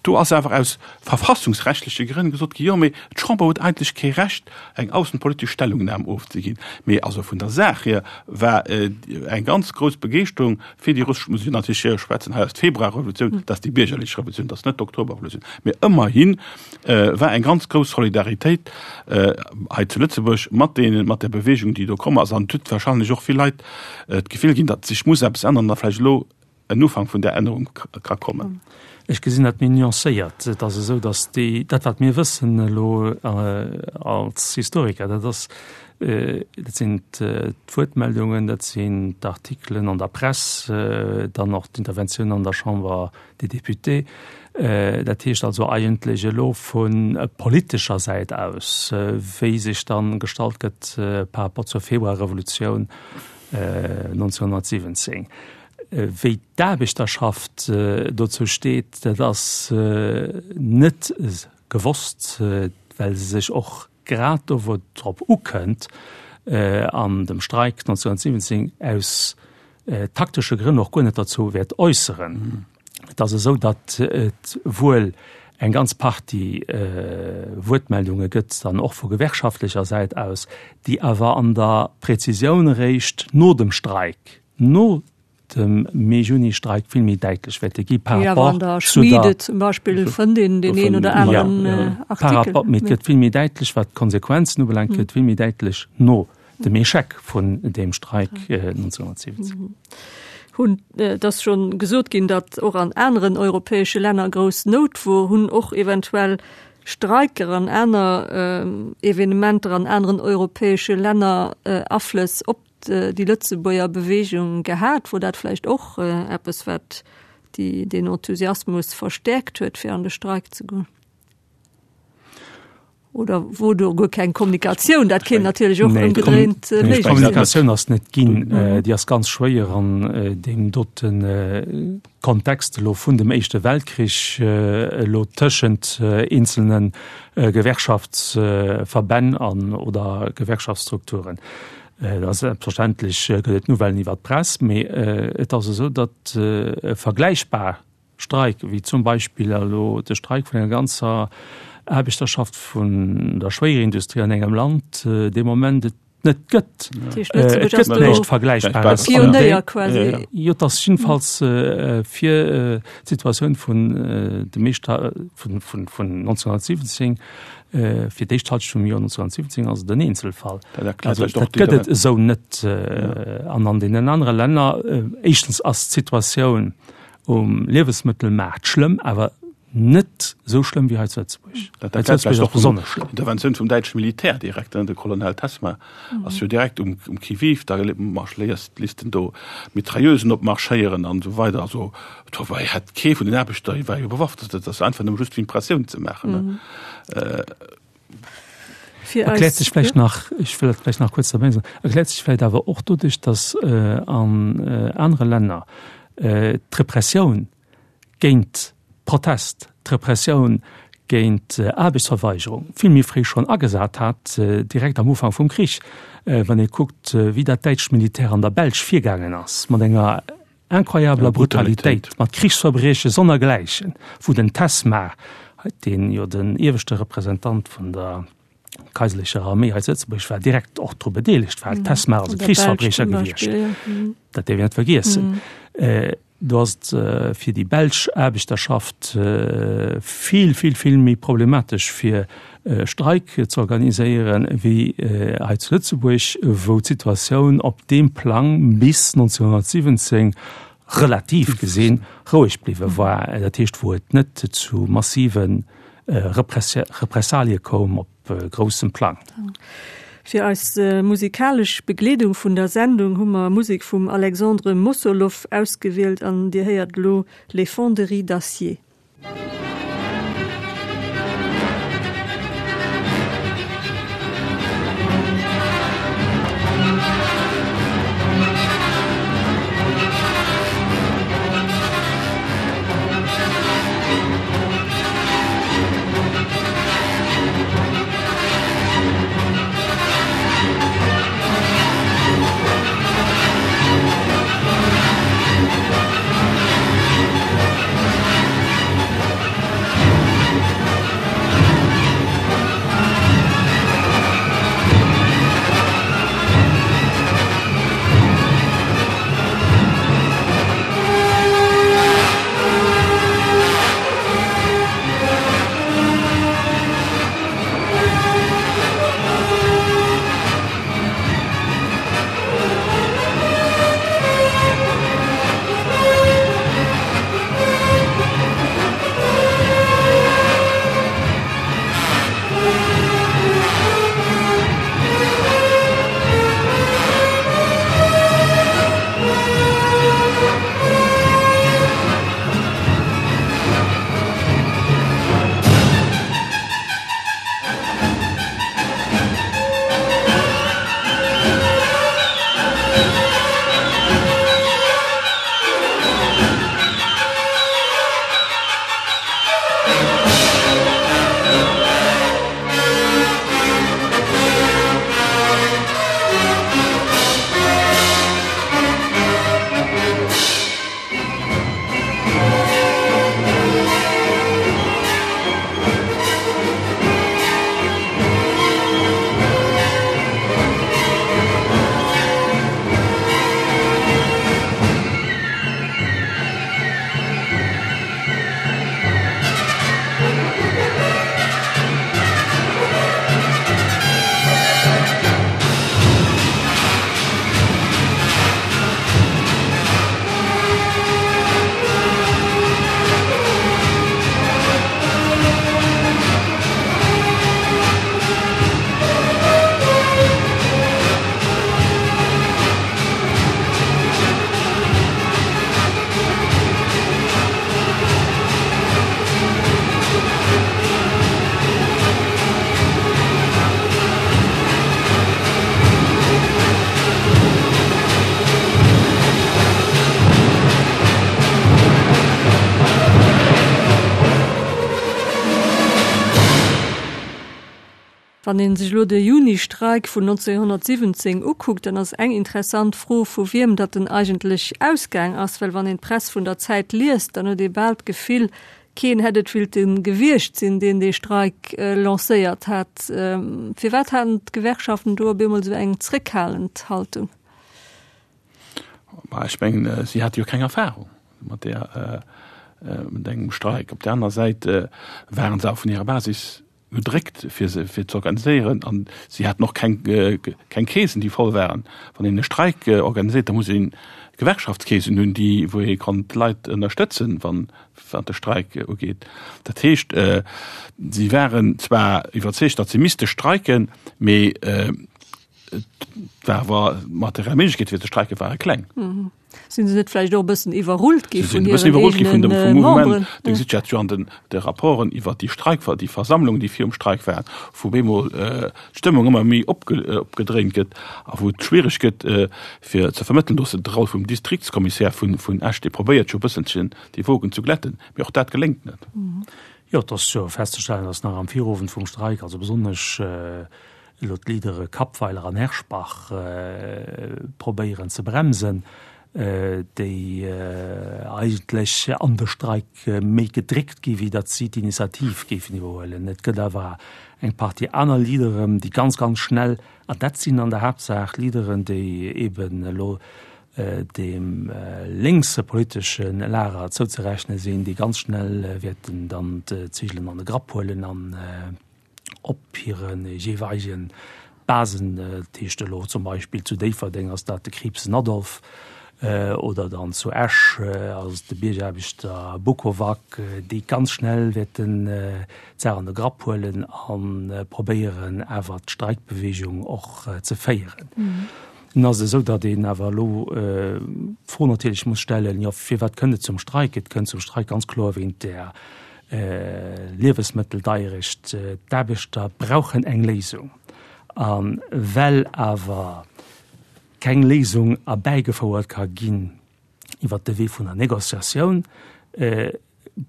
Do ass awer aus verfassungsrechtleche Grënn gesot ginn, jo, mee d'Chamber huet eigentlech kee Recht, eng aussenpolitesch Stellungnam ofzeginn. Mee also vun der Saach hier war eng ganz grouss Begeeschterung fir déi russesch, muss ech natierlech hier schwätzen, hei ass d'Februarrevolutioun, dat ass déi biergerlech Revolutioun, dat ass net d'Oktoberrevolutioun, mee ëmmerhi war eng ganz grouss Solidaritéit hei zu Lëtzebuerg mat deenen, mat der Bewegung, déi do komm ass. An et huet wahrscheinlech och vill Leit d'Gefill ginn, datt sech muss eppes änneren a vläicht elo en Ufank vun där Ännerung ka kommen. Ech gesinn dat méi nuancéiert. Et ass esou, datt déi, dat wat mir wëssen elo als Historiker, dat ass, dat sinn d'Wuertmeldungen, dat sinn d'Artikelen an der Press, dann och d'Interventiounen an der Chambre des Députés. Dat heescht also eigentlech elo vu politescher Säit aus, wéi sech dann gestallt gëtt par rapport zur Februarrevolutioun 1917. Wéi d'Aarbechterschaft dozou steet, dat ass net gewosst, well se sech och grad do, wou et drop ukënnt, an dem Streik 1917, aus taktesche Grënn och guer net derzou wäert äusseren. Et ass esou, datt et wuel eng ganz Partie Wuertmeldunge gëtt, dann och vu gewerkschaftlecher Säit aus, déi awer an der Präzisioun eréischt no dem Streik, no dem Mee-Juni-Streik vill méi däitlech wäerte gi par rapport zu der. Schmiede zum Beispill fënnt een deen een oder aneren Artikel. Par rapport, mee et gëtt vill méi däitlech, wat d'Konsequenzen ubelaangt, gëtt vill méi däitlech no dem Echec vun deem Streik 1917. Hunn, et ass schonn gesot ginn, datt och an aneren europäesche Länner grouss Nout wor, hunn och eventuell Streiker an aner Evenementer an aneren europäesche Länner Aflëss op déi Lëtzebuerger Beweegung gehat? Wor dat vläicht och eppes, wat déi, deen Enthusiasmus verstäerkt huet, fir an de Streik ze goen? Oder wor do guer keng Kommunikatioun? Dat kéint natierlech och ëmgedréint méiglech sinn. D'Kommunikatioun ass net ginn. Déi ass ganz schwéier an deem dote Kontext elo vun dem Éischte Weltkrich, elo tëschent eenzelne Gewerkschaftsverbänn an oder Gewerkschaftsstrukturen. Et ass selbstverständlech gëtt et Nouvellen iwwer d'Press, mee et ass esou, datt e vergläichbar Streik, wéi zum Beispill elo de Streik vun enger ganzer Aarbechterschaft vun der Schwéierindustrie an engem Land, dee Moment et net gëtt. Et gëtt näischt Vergläichbares. Pionéier quasi. Jo, et ass jiddefalls fir d'Situatioun vun de meeschter vun 1917, fir d'éischt Halschent vum Joer 1917 ass et en Eenzelfall. Also dat gëtt et esou net. An an deenen anere Länner, éischtens ass d'Situatioun um Liewesmëttelmaart schlëmm, awer net esou schlëmm wéi hei zu Lëtzebuerg. Dat erkläert vläicht och besonnesch schlëmm. Interventioun vum däitsche Militär direkt, de Colonel Tessmer ass jo direkt um um Qui-vive, da marschléiert, lisst en do Mitrailleusen opmarschéieren an esou weider. Also do war hätt kee vun den Aarbechter, war jo bewaffnet, dat ass einfach nëmme just fir Impressioun ze maachen. Fir Erkläert eis, sech vläicht ja. nach, ech wëll dat vläicht nach kuerz derbäi soen, erkläert sech vläicht awer och doduerch, datt an anere Länner d'Repressioun géint Protest, d'Repressioun géint Aarbechtsverweigerung vill méi fréi schonn agesat hat, direkt am Ufank vum Krich. Wann ee kuckt, wéi dat däitscht Militär an der Belsch virgaangen ass mat enger incroyabeler Brutalitéit, mat Krichsverbrieche sonnergläichen, wou den Tesmar, deen jo den ieweschte Representant vun der kaiserlecher Arméi hei zu Lëtzebuerg war, direkt och dru bedeelegt war. Tesmar ass e Krichsverbriecher gewiescht, dat däerf een net vergiessen. Do ass et fir déi belsch Aarbechterschaft vill, vill, vill méi problematesch fir e Streik ze organiséieren, wéi hei zu Lëtzebuerg, wou d'Situatioun op deem Plang bis 1917 relativ gesinn roueg bliwwe war, dat heescht wou et net zu massive Repressalie koum op groussem Plang. Fir eis musikalesch Begleedung vun der Sendung hu mer Musek vum Alexandre Mossoloff ausgewielt an Dir héiert elo Les Fonderies d'acier. Wann ee sech elo de Juni-Streik vun 1917 ukuckt, dann ass eng interessant Fro, vu wiem datt en eigentlech ausgaang ass. Well wann een d'Press vun der Zäit liest, dann huet ee bal d'Gefill, keen hätt et willte gewiescht sinn, deen dee Streik lancéiert hat. Firwat haten d'Gewerkschaften do op eemol esou eng zréckhalend Haltung? Ma ech mengen, si hate jo keng Erfahrung mat där, mat engem Streik. Op där aner Säit waren se awer vun hirer Basis gedréckt fir se fir ze organiséieren an si haten och keng keng Keesen déi voll waren. Wann een e Streik organiséiert, da muss een Gewerkschaftskeesen hunn déi wou ee kann d'Leit ënnerstëtzen wann wat de Streik ugeet. Dat heescht si waren zwar iwwerzeegt, datt se misste streiken, mee. Et war awer d'materiell Méiglechkeet fir ze streike ware kleng. Sinn se net vläicht och e bëssen iwwerrullt gi vun hiren eegene Memberen? Du gesitt dat jo an den de Rapporten iwwer déi Streik, déi Versammlung, déi virum Streik war, wou bemol d'Stëmmung ëmmer méi opgedréint gëtt a wou et schwiereg gëtt fir ze vermëttelen. Do ass de Roll vum Distriktskommissär vun Esch, dee probéiert jo e bësselchen déi Wogen ze glätten, mee och dat geléngt net. Jo, et ass jo festzestellen, datt nach am Virowend vum Streik, also besonnesch elo d'Leadere Kappweiler an Herschbach probéieren ze bremsen, déi eigentlech an de Streik méi gedréckt gi wéi datt si d'Initiativ géifen iwwerhuelen. Et gëtt awer eng Partie aner Leaderen, déi ganz, ganz schnell, an dat sinn an der Haaptsaach Leaderen, déi eeben elo deem lénkse politesche Lager zouzerechne sinn, déi ganz schnell wäerten dann d'Zigelen an de Grapp huelen an op hire jeeweilege Basen, dat heescht elo zum Beispill zu Déifferdeng ass dat de Kriibsen Adolphe oder dann zu Esch ass et de Biergaarbechter Bukovac, déi ganz schnell wäerten d'Saach an de Grapp huelen a probéieren awer d'Streikbeweegung och ze féieren. Nun ass et esou, datt een awer elo d'Fro natierlech muss stellen, jo firwat kënnt et zum Streik? Et kënnt zum Streik ganz kloer wéint där Liewesmëtteldeierecht. D'Aarbechter brauchen eng Léisung. A well awer keng Léisung erbäigefouert ka ginn iwwert de Wee vun der Négociatioun,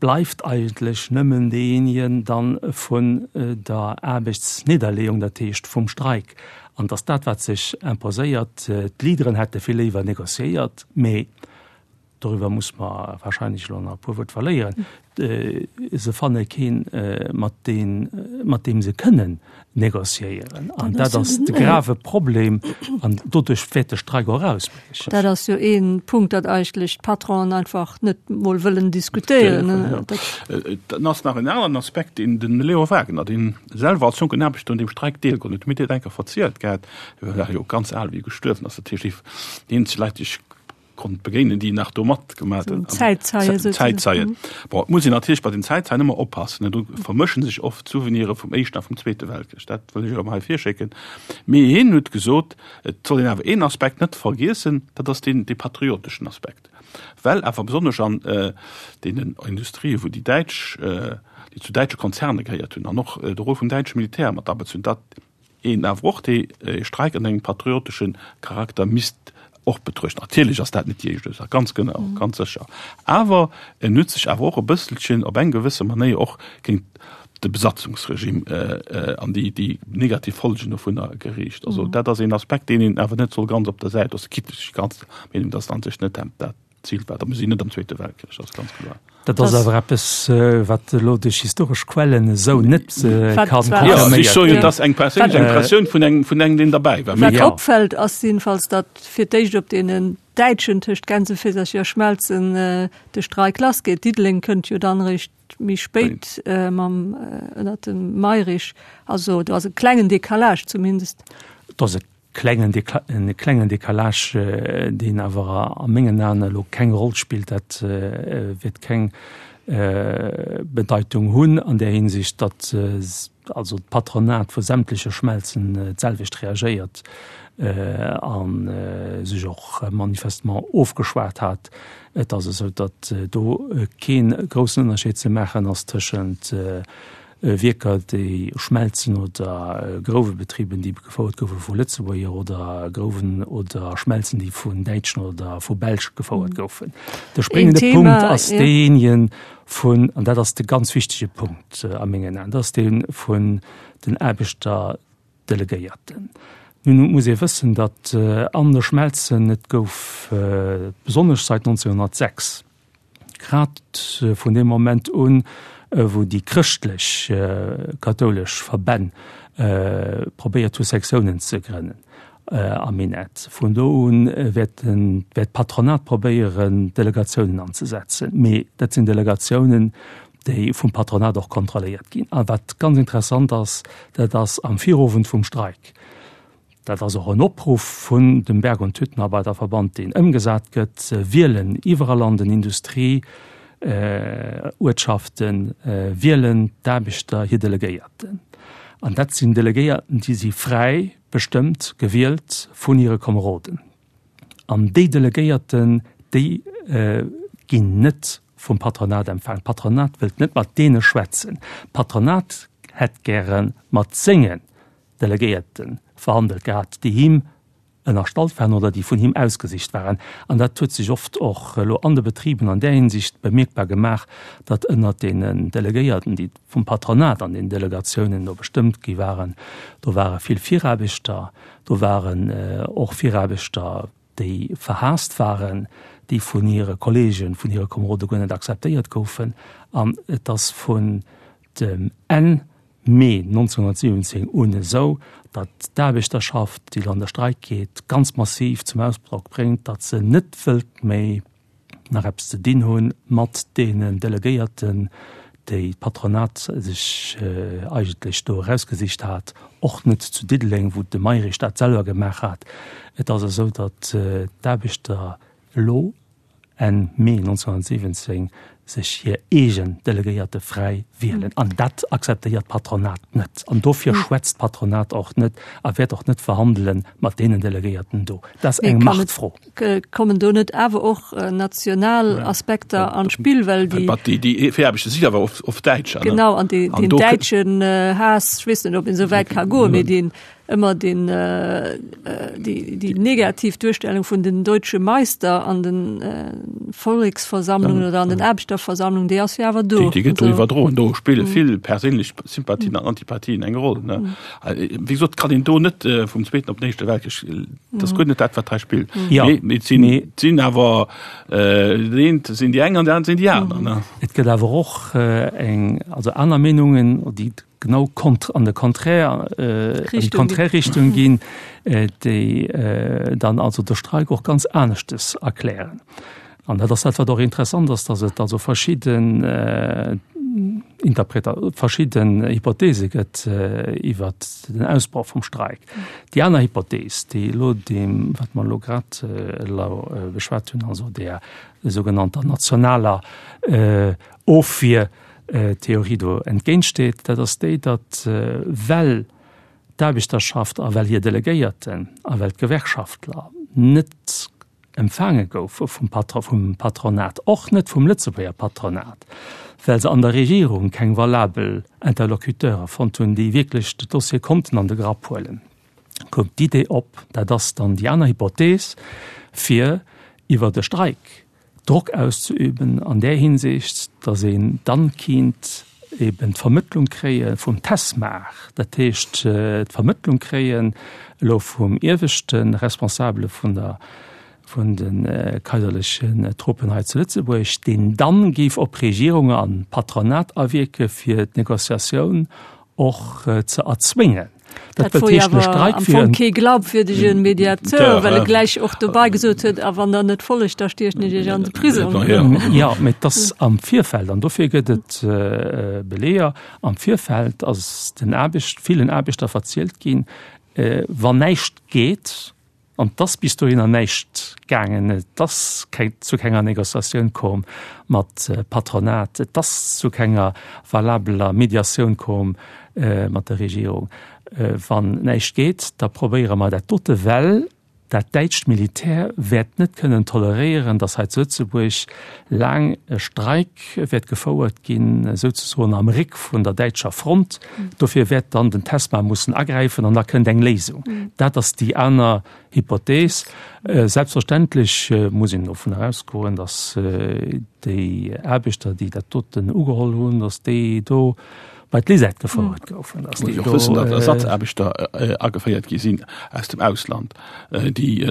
bleift eigentlech nëmmen deejéinegen dann vun der Aarbechtsnidderleeung, dat heescht vum Streik. An et ass dat, wat sech imposéiert. D'Leaderen hätte vill léiwer négociéiert, mee doriwwer muss mer wahrscheinlech elo nach e puer Wuert verléieren, se fanne keen, mat deen, mat deem se kënnen négociéieren. An dat ass de grave Problem an doduerch wäert de Streik och ausbriechen. Dat ass jo ee Punkt, datt eigentlech d'Patronen einfach net mol wëllen diskutéieren. Dann ass nach en aneren Aspekt, deen de Leo Wagener, deen selwer als jonken Aarbechter un deem Streik deelgeholl huet, huet mir dat eng Kéier verzielt gehat, hie war jo ganz al, wéi e gestuerwen ass, dat heescht, déi eenzeg Leit, déi ech konnt begéinen, déi nach do matgemaat hunn. Zäitzeien souzesoen. Zäitzeien. Bon, et muss een natierlech bei den Zäitzeien ëmmer oppassen, ne, do vermëschen sech oft d'Souveniren vum Éischten a vum Zweete Weltkrich. Dat wëll ech awer hei virschécken. Mee hien huet gesot, et soll een awer een Aspekt net vergiessen, dat ass deen, dee patrioteschen Aspekt. Well awer besonnesch an deenen Industrien, wou déi Däitsch, déi zu däitsche Konzerne gehéiert hunn an och de Rôle vum däitsche Militär mat abezunn, dat een awer och dee Streik an engem patriotesche Charakter misst och betruechten. Natierlech ass dat net déi éischt Ursaach, ganz genau, ganz sécher. Awer en huet sech awer och e bësselchen op eng gewësse Manéier och géint de Besatzungsregime an déi, déi negativ Folgen dovunner geriicht. Also dat ass een Aspekt, deen een awer net soll ganz op der Säit loossen, quitte ech ganz der Meenung, dass en an sech net dat Zil war. Da mir sinn net am Zweete Weltkrich, dat ass ganz kloer. Dat ass awer eppes, wat elo duerch historesch Quellen esou net ka confirméiert ginn. Ech soen jo, et ass eng perséinlech Impressioun vun engem, vun engem, deen derbäi war. Wat opfält, ass jedenfalls, datt fir d'éischt op deenen Däitschen tëscht Gänseféisercher a Schmelzen de Streik lassgeet. Diddeleng kënnt jo dann eréischt méi spéit mam ënnert dem Mayrisch. Also do ass e klengen Décalage zumindest. Et ass e klengen e klengen Décalage, deen awer a mengen Aen elo keng Roll spillt. Dat wäert keng Bedeitung hunn an där Hinsicht, datt also d'Patronat vu sämtleche Schmelzen d'selwecht reagéiert a sech och manifestement ofgeschwat hat. Et ass esou, datt do kee groussen Ënnerscheed ze maachen ass tëschent Wierker, déi Schmelzen oder Grouwebetriben, déi gefouert goufe vu Lëtzebuerger oder Grouwen oder Schmelzen, déi vun Däitschen oder vu Belsch gefouert goufen. De spréngende Punkt ass deejéinege vun, an dat ass de ganz wichtege Punkt a mengen Aen, dat ass dee vun den Aarbechterdelegéierten. Nun muss ee wëssen, datt an de Schmelzen et gouf, besonnesch seit 1906, Grad vun deem Moment un, wou déi chrëschtlech kathoulesch Verbänn probéiert hu Sektiounen ze grënnen am Minett, vun do un wäert d'Patronat probéieren Delegatiounen anzesetzen. Mee dat sinn Delegatiounen, déi vum Patronat och kontrolléiert ginn. A wat ganz interessant ass, dat ass am Virowend vum Streik, Dat ass och en Opruff vun dem Berg und Hüttenarbeiterverband, deen ëmgesat gëtt, Wielen iwwerall an den Industrieuertschaften wielen d'Aarbechter hir Delegéierten. An dat sinn Delegéierten, déi si fräi. bestëmmt, gewielt vun hire Komeroden. An déi Delegéierten, déi ginn net vum Patronat empfaangen. D'Patronat wëllt net mat deene schwätzen. D'Patronat hätt gäre mat sengen Delegéierte verhandelt gehat, déi him ënnerstallt waren oder déi vun him ausgesicht waren. An dat huet sech oft och elo an de Betriben an där Hinsicht bemierkbar gemaach, datt ënnert deenen Delegéierten, déi vum Patronat an den Delegatiounen do bestëmmt gi waren, do ware vill Viraarbechter, do waren och Viraarbechter, déi verhaasst waren, déi vun hire Kollegen, vun hire Komerode guer net akzeptéiert goufen. An et ass vun dem Enn Mee 1917 un esou, datt d'Aarbechterschaft, déi elo an de Streik geet, ganz massiv zum Ausdrock bréngt, datt se net wëllt méi nach eppes ze dinn hu mat deenen Delegéierten, déi d'Patronat sech eigentlech do erausgesicht hat, och net zu Diddeleng, wou de Mayrisch dat selwer gemaach hat. Et ass esou, datt d'Aarbechter elo Enn Mee 1917 sech hir eegen Delegéierte fräi wielen. An dat akzeptéiert d'Patronat net. An dofir schwätzt d'Patronat och net a wäert och net verhandele mat deenen Delegéierten do. Dat ass eng Machtfro. Kommen do net awer och national Aspekter an d'Spill, well déi. Déi Viraarbechter si awer oft Däitscher. Genau, an deen däitschen Haass, ech weess net, ob een esou wäit ka goen, mee deen ëmmer den déi déi negativ Duerstellung vun den deutsche Meister an den Volleksversammlungen oder an den Aarbechterversammlungen, déi ass jo awer do. Déi gëtt do iwwerdroen. Do spille vill perséinlech Sympathien an Antipathien eng Roll, ne. Wéi gesot, kann een do net vum Zweeten op den Éischte Weltkrich, dat ass guer net dat, wat hei spillt. Mee et sinn, et sinn awer, dat eent sinn déi eng an dat anert sinn déi aner, ne. Et gëtt awer och eng, also aner Meenungen, déi genau kont an de Contraire äh, an déi konträr Richtung ginn, äh, déi äh, dann also de Streik och ganz aneschtes erklären. An dat ass dat, wat och interessant ass, dass et also verschidden äh, Interpreta verschidden Hypothese gëtt äh, iwwer den Ausbroch vum Streik. Déi aner Hypothees, déi elo deem, wat mer elo grad äh, elo äh, beschwat hunn, also der sougenannter nationaler äh, Ofwier, Theorie do entgéintsteet, dat ass déi, datt well d'Aarbechterschaft a well hir Delegéierten a well d'Gewerkschaftler net empfaange goufe vum Patronat, och net vum Lëtzebuerger Patronat, well se an der Regierung keng valabel Interlocuteure fonnt hunn, déi wierklech de Dossier konnten an de Grapp huelen, koum d'Idee op, dat ass dann déi aner Hypothees, fir iwwert e Streik Drock auszeüben an där Hinsicht, datt een dann kinnt eben d'Vermëttlung kréie vum Tesmar, dat heescht d'Vermëttlung kréien elo vum ieweschte Responsabele vun der, vun de kaiserlechen Truppen hei zu Lëtzebuerg, deen dann géif op Regierung an Patronat awierke fir d'Negociatioun och ze erzwéngen. Dat wor jo awer am Fong kee glaubwürdege Mediateur, well e gläich och dobei gesot huet, a wann Der net follegt, da stiechen ech Iech an de Prisong. Jo, mee et ass am Virfeld, an dofir gëtt et Beleeër, am Virfeld ass den Aarbecht, villen Aarbechter verzielt ginn, wann näischt geet, An 't ass bis dohinner näischt gaangen. Et ass keng, zu kenger Négociatioun koom mat Patronat. Et ass zu kenger valabeler Mediatioun koom mat der Regierung. Wann näischt geet, da probéiere mer dat dote, well dat däitscht Militär wäert net kënnen toleréieren, datt hei zu Lëtzebuerg laang e Streik wäert gefouert ginn, souzesoen am Réck vun der däitscher Front. Dofir wäert dann den Tesma mussen agräifen an da kënnt eng Léisung. Dat ass déi aner Hypothees. Selbstverständlech muss een dovun ausgoen, datt déi Aarbechter, déi dat doten ugeholl hunn, datt déi do bei d'Lisette gefouert goufen. Muss een och wëssen, datt Ersatzaarbechter ageféiert gi sinn aus dem Ausland, déi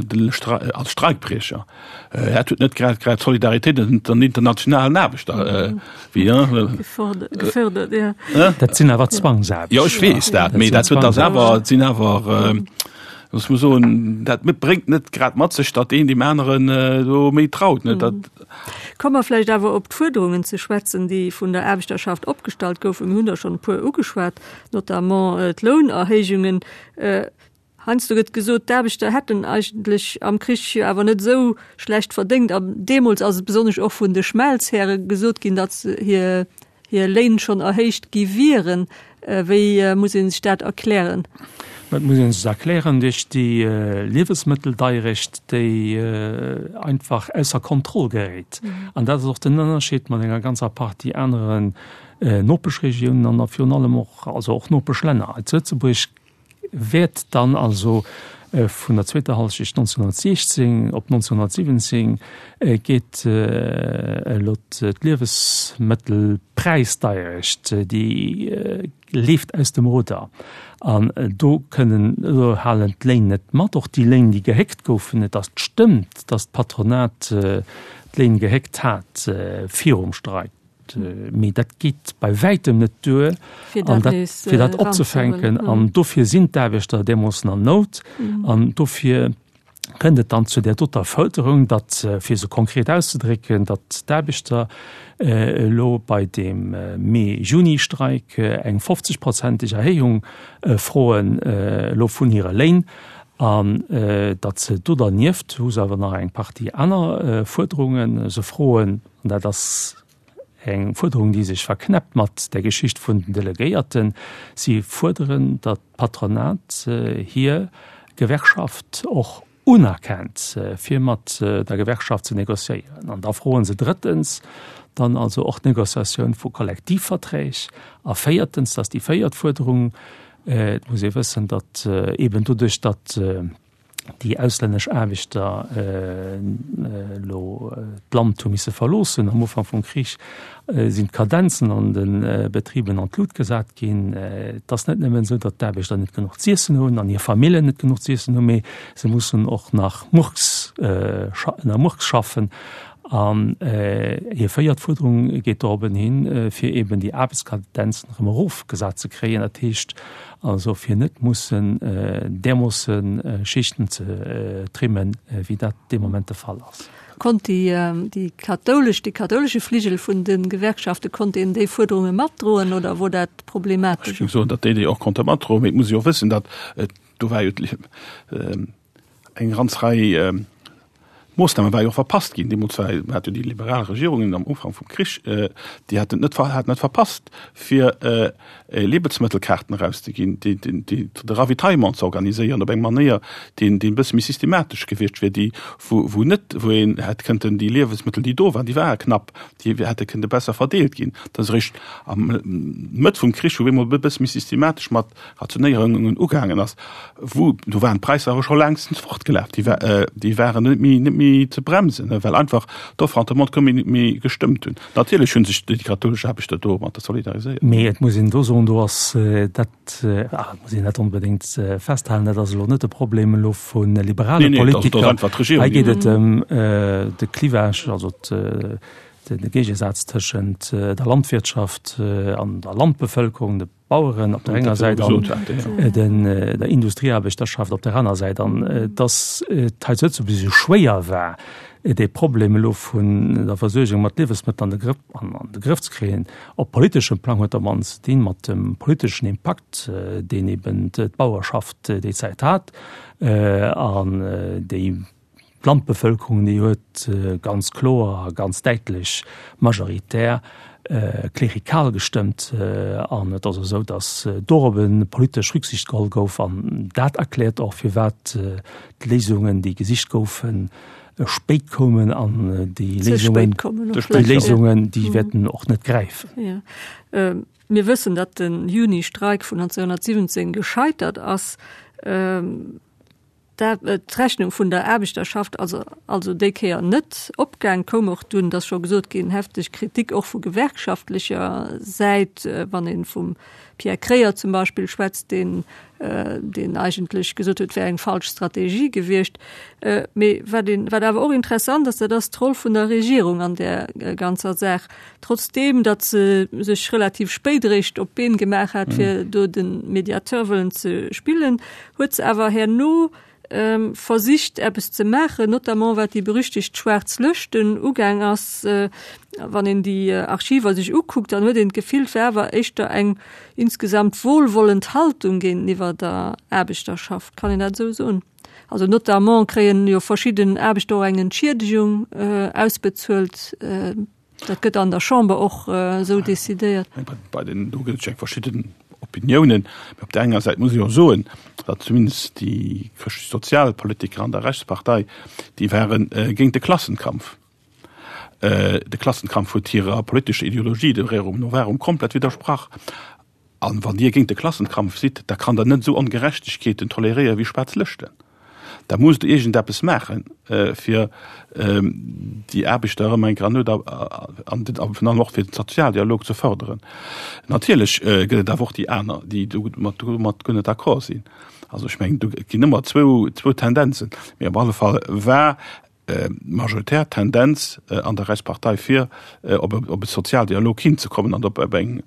als Streikbriecher. Dat huet net grad grad d'Solidaritéit ënnert den internationalen Aarbechter wéi gefördert. Dat sinn awer Zwangsaarbechter. Jo, ech weess dat, mee dat huet ass awer, et sinn awer, looss mer soen, dat bréngt net grad mat sech, datt een deem aneren do méi traut, ne? Dat. Komme mer vläicht awer op d'Fuerderungen ze schwätzen, déi vun der Aarbechterschaft opgestallt goufen. Mir hunn der schonn e puer ugeschwat, notamment d'Lounerhéijungen. Heiansdo gëtt gesot, d'Aarbechter hätten eigentlech am Krich jo awer net esou schlecht verdéngt. An deemools ass et besonnesch och vun de Schmelzhäre gesot ginn, datt hir hir Léin schonn erhéicht gi wieren. Wéi muss ee sech dat erklären? Dat muss ee sech erklären duerch déi Liewesmëtteldeierecht, déi einfach ausser Kontroll geréit. An dat ass och den Ënnerscheed mat enger ganzer Partie aneren Nopeschregiounen an a virun allem och, also och Nopeschlänner. Hei zu Lëtzebuerg wäert dann also vun der zweeter Hallschecht 1916 op 1917 geet elo d'Liewesmëttelpräisdeierecht, déi leeft aus dem Ruder an do kënnen, do halen d'Léin net mat, och déi Léin, déi gehéckt goufen. Et ass, stëmmt, datt d'Patronat d'Léin gehéckt hat virum Streik. Mee dat geet bei wäitem net duer, fir dat, fir dat opzefänken. An dofir sinn d'Aarbechter deemooss an Nout. An dofir kënnt et dann zu där doter Fërderung, datt, fir se konkret auszedrécken, datt d'Aarbechter elo bei deem Mee-Juni-Streik eng 50-prozenteg Erhéijung froen elo vun hire Léin an datt se do dernieft hu se awer nach eng Partie aner Fuerderungen. Se froen, An dat ass eng Fuerderung, déi sech verknäppt mat der Geschicht vun den Delegéierten. Si fuerderen, datt d'Patronat hir Gewerkschaft och unerkennt, fir mat der Gewerkschaft ze négociéieren. An da froe se drëttens dann also och d'Négociatioun vu Kollektivverträg. A véiertens, dat ass déi véiert Fuerderung, et muss ee wëssen, datt eeben doduerch, datt déi auslännesch Aarbechter elo d'Land hu misse verloossen am Ufank vum Krich, sinn d'Kadenzen an de Betriben an d'Lut gesat ginn. Et ass net nëmmen esou, datt d'Aarbechter net genuch z'iessen hunn an hir Famillen net genuch z'iessen hunn, mee se mussen och nach Murks, ënner Murks schaffen. An hir véiert Fuerderung geet dorobben hin, fir eben déi Aarbechtskadenzen erëm erofgesat ze kréien, dat heescht also fir net mussen därmoosse Schichten ze trimmen, wéi dat dee Moment de Fall ass. Konnt déi kathoulesch, dee kathoulesche Fligel vun de Gewerkschafte, konnt deen déi Fuerderunge matdroen oder wor dat problematesch? Ech géing soen, datt déi déi och konnte matdroen, mee et muss ee jo och wëssen, datt do war jo eng ganz Rei Moossname war jo och verpasst ginn. Deemools war hat jo déi liberal Regierungen am Ufank vum Krich, déi haten net haten net verpasst, fir Liebensmëttelkaarten erauszeginn, déi déi de Ravitaillement ze organiséieren op eng Manéier, deen deen e bësse méi systematesch gewiescht wier, déi wou wou net wou een hätt kënnten déi Liewensmëttel, déi do waren, déi ware knapp, déi hätte kënnte besser verdeelt ginn. Dat ass eréischt am Mëtt vum Krich, wou op eemol e bësse méi systematesch mat Rationéierungen ugaangen ass, wou do waren d'Präisser awer scho längstens fortgelaf, déi war, déi waren net méi, net méi ze bremsen, well einfach d'Offre an d'Demande koum net méi gestëmmt hunn. Natierlech hu sech déi kathoulesch Aarbechter domatter solidariséiert. Mee et muss een do soen, do ass dat, ah, et muss een net onbedéngt festhalen, dat ass elo net de Problem elo vu liberale Politiker. Hei geet et ëm de Clivage, also de Géigesaz tëschent der Landwirtschaft an der Landbevëlkerung, de Baueren op der enger Säit an den der Industrieaarbechterschaft op der aner Säit. An dass et hei zu Lëtzebuerg esou schwéier war, dee Problem elo vun der Versuergung mat Liewesmëttel an de Grëff, an de Grëff ze kréien, op politeschem Plang huet am mannsten ze dinn mat dem politeschen Impakt, deen eben d'Bauerschaft déi Zäit hat an déi D'Landbevëlkerung, déi huet ganz kloer a ganz däitlech majoritär klerikal gestëmmt. An et ass esou, datt dorop e politesch Rücksicht geholl gouf. An dat erkläert och, firwat d'Léisungen, déi gesicht goufen, spéit koumen. An déi Léisungen, déi Léisungen, déi wäerten och net gräifen. Mir wëssen, datt de Juni-Streik vun 1917 gescheitert ass. D'Rechnung vun der Aarbechterschaft ass also déi Kéier net opgaang, koum och dunn, et ass scho gesot ginn, hefteg Kritik och vu gewerkschaftlecher Säit, wann ee vum Pierre Kreyer zum Beispill schwätzt, deen deen eigentlech gesot huet, et wär eng falsch Strategie gewiescht. Mee wat een, wat awer och interessant ass, dat ass d'Roll vun der Regierung an där ganzer Saach. Trotzdeem, datt se sech relativ spéit eréischt op d'Been gemaach hat, fir do de Mediateur wëllen ze spillen, huet se awer herno versicht eppes ze maachen, notamment wat déi berüchtegt schwaarz Lëschten ugaang ass. Wann een déi Archiver sech ukuckt, dann huet een d'Gefill, et wär awer éischter eng insgesamt wohlwollend Haltung géinteniwwer der Aarbechterschaft. Kann een dat esou soen? Also notamment kréien jo verschidden Aarbechter och eng Entschiedegung ausbezuelt. Dat gëtt an der Chamber och esou decidéiert. Bei den, do gëtt et jo eng verschidden. Opiniounen. Mee op där enger Säit muss ee jo soen, datt zumindest déi chrëschtlech-sozial Politiker an der Rechtspartei, déi ware géint de Klassenkampf. De Klassenkampf huet hirer politescher Ideologie, dem Rerum Novarum, komplett widdersprach. An wann Dir géint de Klassenkampf sidd, da kann Der net esou Ongerechtegkeeten toleréieren wéi schwaarz Lëschten. Da musst Der iergendeppes maachen, fir déi Aarbechter erëm eng Kéier an an virun allem och fir den Sozialdialog ze fërderen. Natierlech gëtt et awer och déi aner, déi domat guer net d'accord sinn. Also ech mengen, do ginn ëmmer zwou Tendenzen. Mee op alle Fall war majoritär Tendenz an der Rechtspartei fir op e Sozialdialog hinzekommen an op eng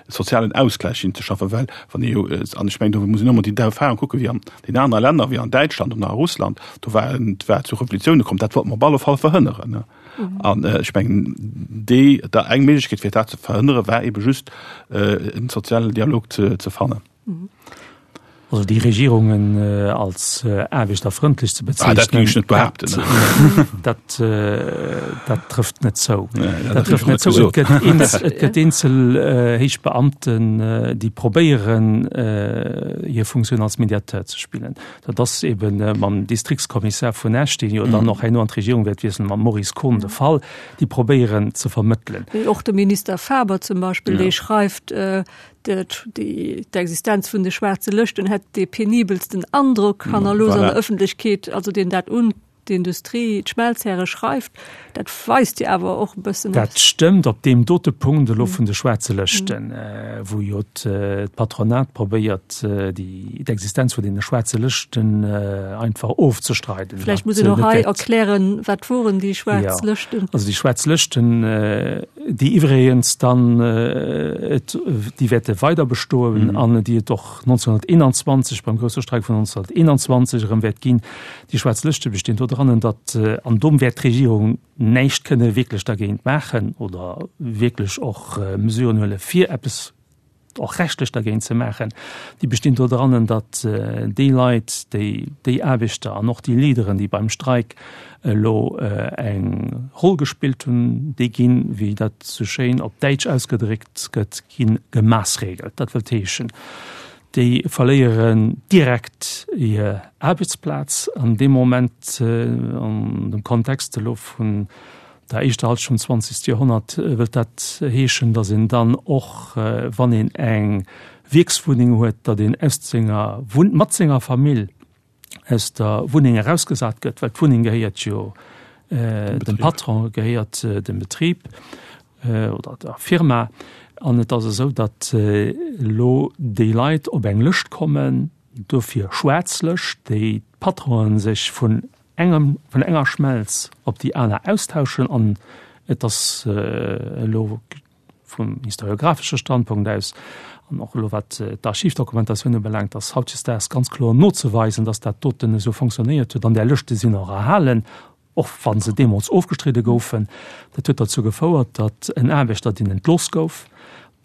sozialen Ausgläich hinzeschaffen, well wann ee jo, an ech mengen do muss een och emol déi Erfahrung kucken, wéi an den anere Länner, wéi an Däitschland oder a Russland, do war et war zu Revolutioune komm, dat wollte mer op alle Fall verhënneren. An ech mengen déi da eng Méiglechkeet fir dat ze verhënnere war ebe just en sozialen Dialog ze fannen. Also déi Regierungen als aarbechterfrëndlech ze bezeichnen, ah, dat géing ech net behaapten. Dat, dat trëfft net zou. Nee, dat, dat trëfft net zou. Et gëtt eenzel, et gëtt eenzel héich Beamten, déi probéieren, hir Funktioun als Mediateur ze spillen. Dat ass eben mam Distriktskommissar vun Esch, deen jo dann och herno an d'Regierung wäert wiesselen, mam Maurice Kohn de Fall, déi probéieren ze vermëttelen. Och de Minister Faber zum Beispill, dee schreift, D'Existenz vun de schwaarze Lëschten hätt dee penibelsten Androck hannerlooss an der Ëffentlechkeet, also deen dat un d'Industrie, d'Schmelzhäre schreift, dat weist jo awer och e bëssen. Dat stëmmt op deem dote Punkt elo vun de schwaarze Lëschten, wou jo d'Patronat probéiert, d'Existenz vun deene schwaarze Lëschten einfach ofzestreiden. Vläicht muss een och hei erklären, wat woren déi schwaarz Lëschten? Also déi schwaarz Lëschten, déi iwwregens dann et, déi wäerte weider bestoen an déi et och 1921 beim grousse Streik vun 1921 erëm wäert ginn. Déi schwaarz Lëschte bestinn dodrannen, datt, an do wäert d'Regierung näischt kënne wierklech dergéint maachen oder wierklech och Mesuren huele fir eppes och rechtlech dergéint ze maachen, déi bestinn do drannen, datt déi Leit, déi, déi Aarbechter an och déi Leaderen, déi beim Streik elo eng Roll gespillt hunn, déi ginn, wéi dat sou schéin op Däitsch ausgedréckt gëtt, gi gemaßregelt. Dat wëllt heeschen, déi verléieren direkt hir Aarbechtsplaz an deem Moment, an dem Kontext elo vun der éischter Halschent vum zwanzegste Joerhonnert wëllt dat heeschen, datt een dann och, wann een eng Wierkswunneng huet, datt een aus senger Wunn, mat senger Famill aus der Wunneng erausgesat gëtt, well d'Wunneng gehéiert jo dem Patron, gehéiert dem Betrib oder der Firma. An et ass esou, datt elo déi Leit op eng Lëscht kommen, dofir schwaarz Lëscht, déi d'Patronen sech vun engem, vun enger Schmelz op déi aner austauschen an et ass elo vum historiografesche Standpunkt aus an och elo wat d'Archivdokumentatioun ubelaangt, ass hautdesdaags ganz kloer nozeweisen, dass dat doten esou fonctionnéiert huet an där Lëschte sinn och erhalen, och wa se deemools ofgestridde goufen. Dat huet derzou gefouert, datt en Aarbechter, deen entlooss gouf,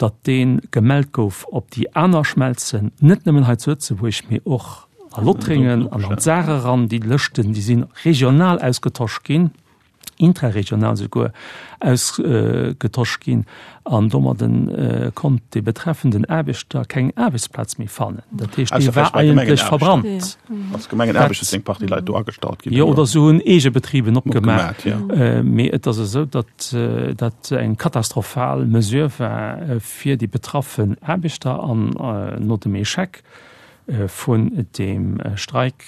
datt dee gemellt gouf op déi aner Schmelzen, net nëmmen hei zu Lëtzebuerg, mee och a Lothringen an an d'Saar eran. Déi Lëschten, déi si regional ausgetosch ginn, intraregional souguer ausgetosch ginn an domadden konnt dee betreffenden Aarbechter keng Aarbechtsplaz méi fannen. Dat heescht, dee war eigentlech verbrannt. Als Gemengenaarbechter sinn eng Partie Leit do agestallt ginn. Jo, oder se hunn eege Betriben opgemaach. Mee et ass esou, datt dat eng katastrophal Mesure war fir déi betraffen Aarbechter an no dem Echec vun deem Streik,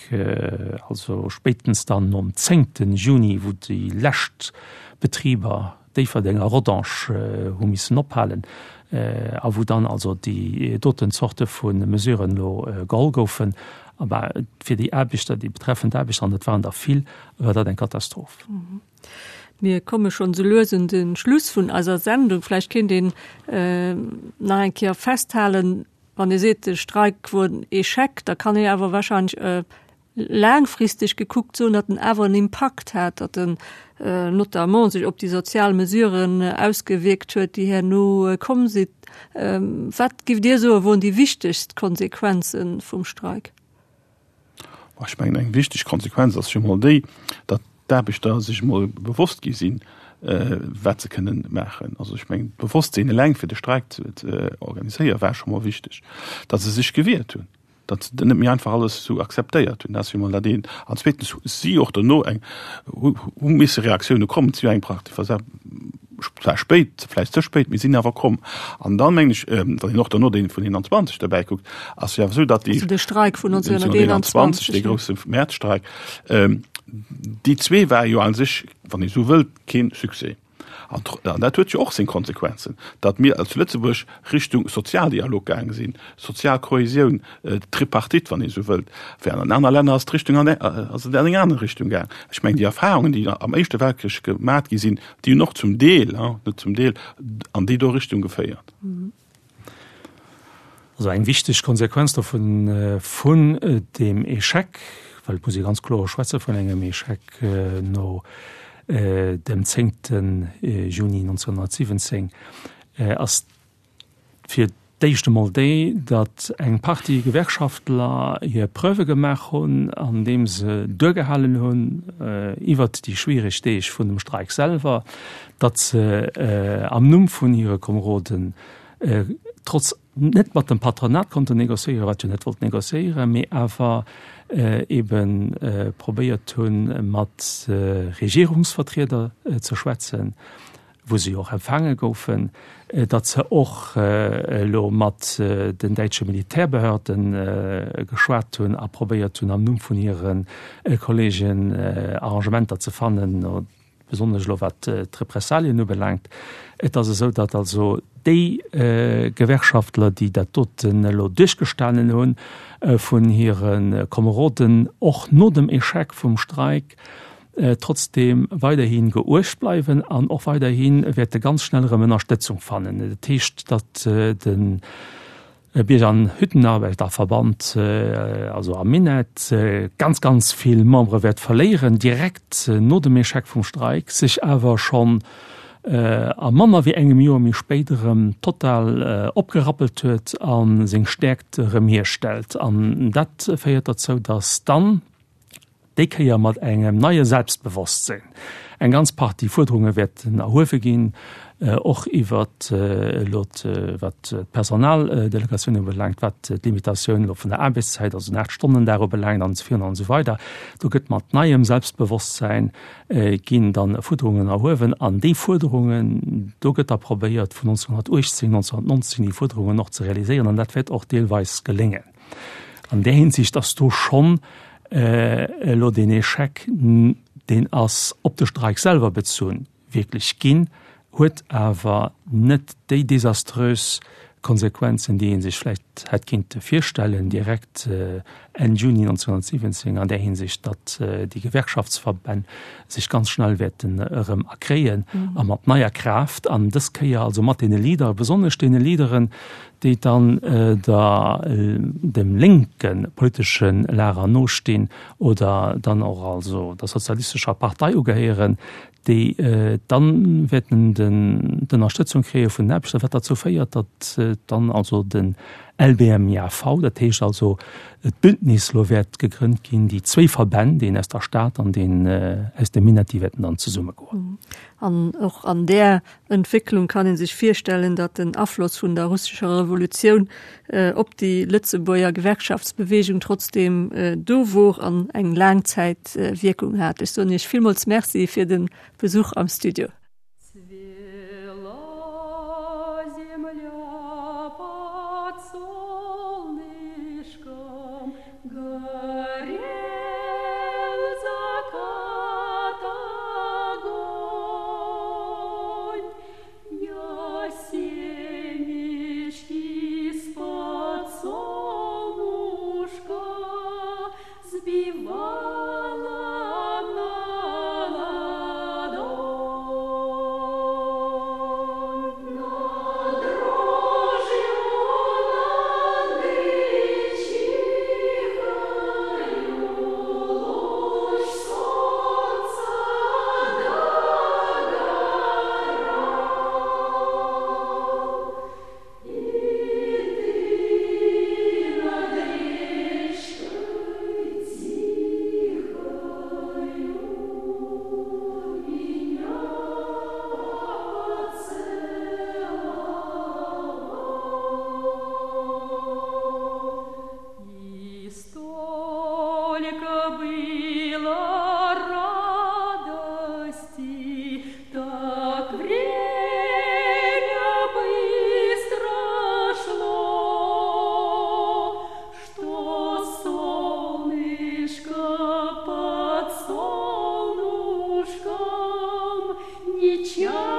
also spéitens dann nom zéngte Juni, wou déi lescht Betriber, Déifferdeng a Rodange, hu missen ophalen a wou dann also déi doten Zorte vu Mesuren elo geholl goufen, bah, fir déi Aarbechter, déi betreffend Aarbechter, an dat waren der vill, war dat eng Katastroph. Mir komme schonn esou lues un de Schluss vun eiser Sendung. Vläicht kéint een nach eng Kéier festhalen, Wann ee seet, de Streik wor en Echec, da kann ee awer wahrscheinlech laangfristeg gekuckt soen, datt en awer en Impakt hat, datt en notamment sech op déi sozial Mesuren ausgewierkt huet, déi herno komm sinn. Wat giff Dir soen, woren déi wichtegst Konsequenze vum Streik? Ech mengen, eng wichteg Konsequenz ass jo mol déi, datt d'Aarbechter sech emol bewosst gi sinn. wat se kënnen maachen. Also ech mengen, d'Bewosstsinn eleng fir de Streik ze organiséieren, war scho mol wichteg. Datt se sech gewiert hunn, datt se net méi einfach alles esou akzeptéiert hunn, dat ass jo mol dat eent. An zweetens si och dono eng, hu misse Reaktioune kommen, et si jo eng Partie zwar spéit, vläicht ze spéit, mee sinn awer komm. An dann, mengen ech, wann een och dono dee vun 21 derbäi kuckt, ass jo awer esou, datt déi. Also de Streik vun 1921, dee grousse Mäerzstreik, déi zwee ware jo a sech, wann ee sou wëllt, kee Succès. An dat huet jo och seng Konsequenzen, datt mir zu Lëtzebuerg Richtung Sozialdialog gaange sinn, sozial Kohäsioun, Tripartite, wann ee sou wëllt, während an aner Länner ass d'Richtung an ass et an eng aner Richtung gaang. Ech mengen, déi Erfahrungen, déi am Éischte Weltkrich gemat gi sinn, déi hunn och zum Deel, net zum Deel, an déi do Richtung geféiert. Also eng wichteg Konsequenz dovun, vun deem Échec, well et muss ee ganz kloer schwätze vun engem Échec no dem zéngte Juni 1917, ass fir d'éischt emol déi, datt eng Partie Gewerkschaftler hir Preuve gemaach hunn, andeem se duergehalen hunn iwwert déi schwiereg Deeg vun dem Streik selwer, datt se am Numm vun hire Komeroden trotz net mat dem Patronat konnten négociéieren, wat jo net wollt négociéieren, mee awer ebe probéiert hunn, mat Regierungsvertrieder ze schwätzen, wou se jo och empfaange goufen, datt se och elo mat den däitsche Militärbehörden geschwat hunn a probéiert hunn, am Numm vun hire Kollegen Arrangementer ze fannen, besonnesch elo wat d'Repressalien ubelaangt. Et ass esou, datt also déi Gewerkschaftler, déi dat doten elo duerchgestanen hunn, vun hire Komeroden och no dem Échec vum Streik trotzdeem weiderhi geuecht bleiwen an och weiderhi wäerte ganz schnell erëm Ënnerstëtzung fannen. Dat heescht, datt de Bierger an Hüttenarbeiterverband, also am Minett, ganz, ganz vill Membere wäert verléieren, direkt no dem Echec vum Streik, sech awer schonn a manner wéi engem Joer méi spéit erëm total opgerappelt huet a seng Stäerkt erëm hierstellt. An dat féiert derzou, datt dann, déi Kéier mat engem neie Selbstbewosstsinn. Eng ganz Partie Fuerderunge wäerten erhuewe ginn, och iwwer elo wat d'Personaldelegatioun ubelaangt, wat d'Limitatioun elo vun der Aarbechtszäit, also den Aachtstonnendag ubelaangt an esou virun an esou weider. Do gëtt mat neiem Selbstbewosstsäin ginn dann Fuerderungen erhuewen an déi Fuerderungen, do gëtt da probéiert vun 1918, 1919 déi Fuerderungen och ze realiséieren an dat wäert och deelweis geléngen. An där Hinsicht ass do schonn elo deen Échec, deen ass op de Streik selwer bezunn, wierklech ginn, huet awer net déi desaströs Konsequenzen, déi ee sech vläicht hätt kinnte virstellen, direkt Enn Juni 1917, an där Hinsicht, datt déi Gewerkschaftsverbänn sech ganz schnell wäerten erëm erkréien a mat neier Kraaft an dës Kéier also mat deene Leadere, besonnesch deene Leaderen, déi dann der dem lénke politesche Lager nostinn oder dann och also der sozialistescher Partei ugehéieren, déi dann wäerten den d'Ënnerstëtzung kréie vun den Aarbechter, wat derzou féiert, datt dann also den LBMJV, dat heescht also d'Bündnis elo wäert gegrënnt ginn, déi zwéi Verbänn, deen aus der Stad an deen aus dem Minett, déi wäerten dann zesummegoen. An och an där Entwécklung kann ee sech virstellen, datt den Afloss vun der russescher Revolutioun op déi Lëtzebuerger Gewerkschaftsbeweegung trotzdeem do wor an eng laang Zäit Wierkung hat. Ech soen Iech villmools Merci fir de Besuch am Studio. печаль.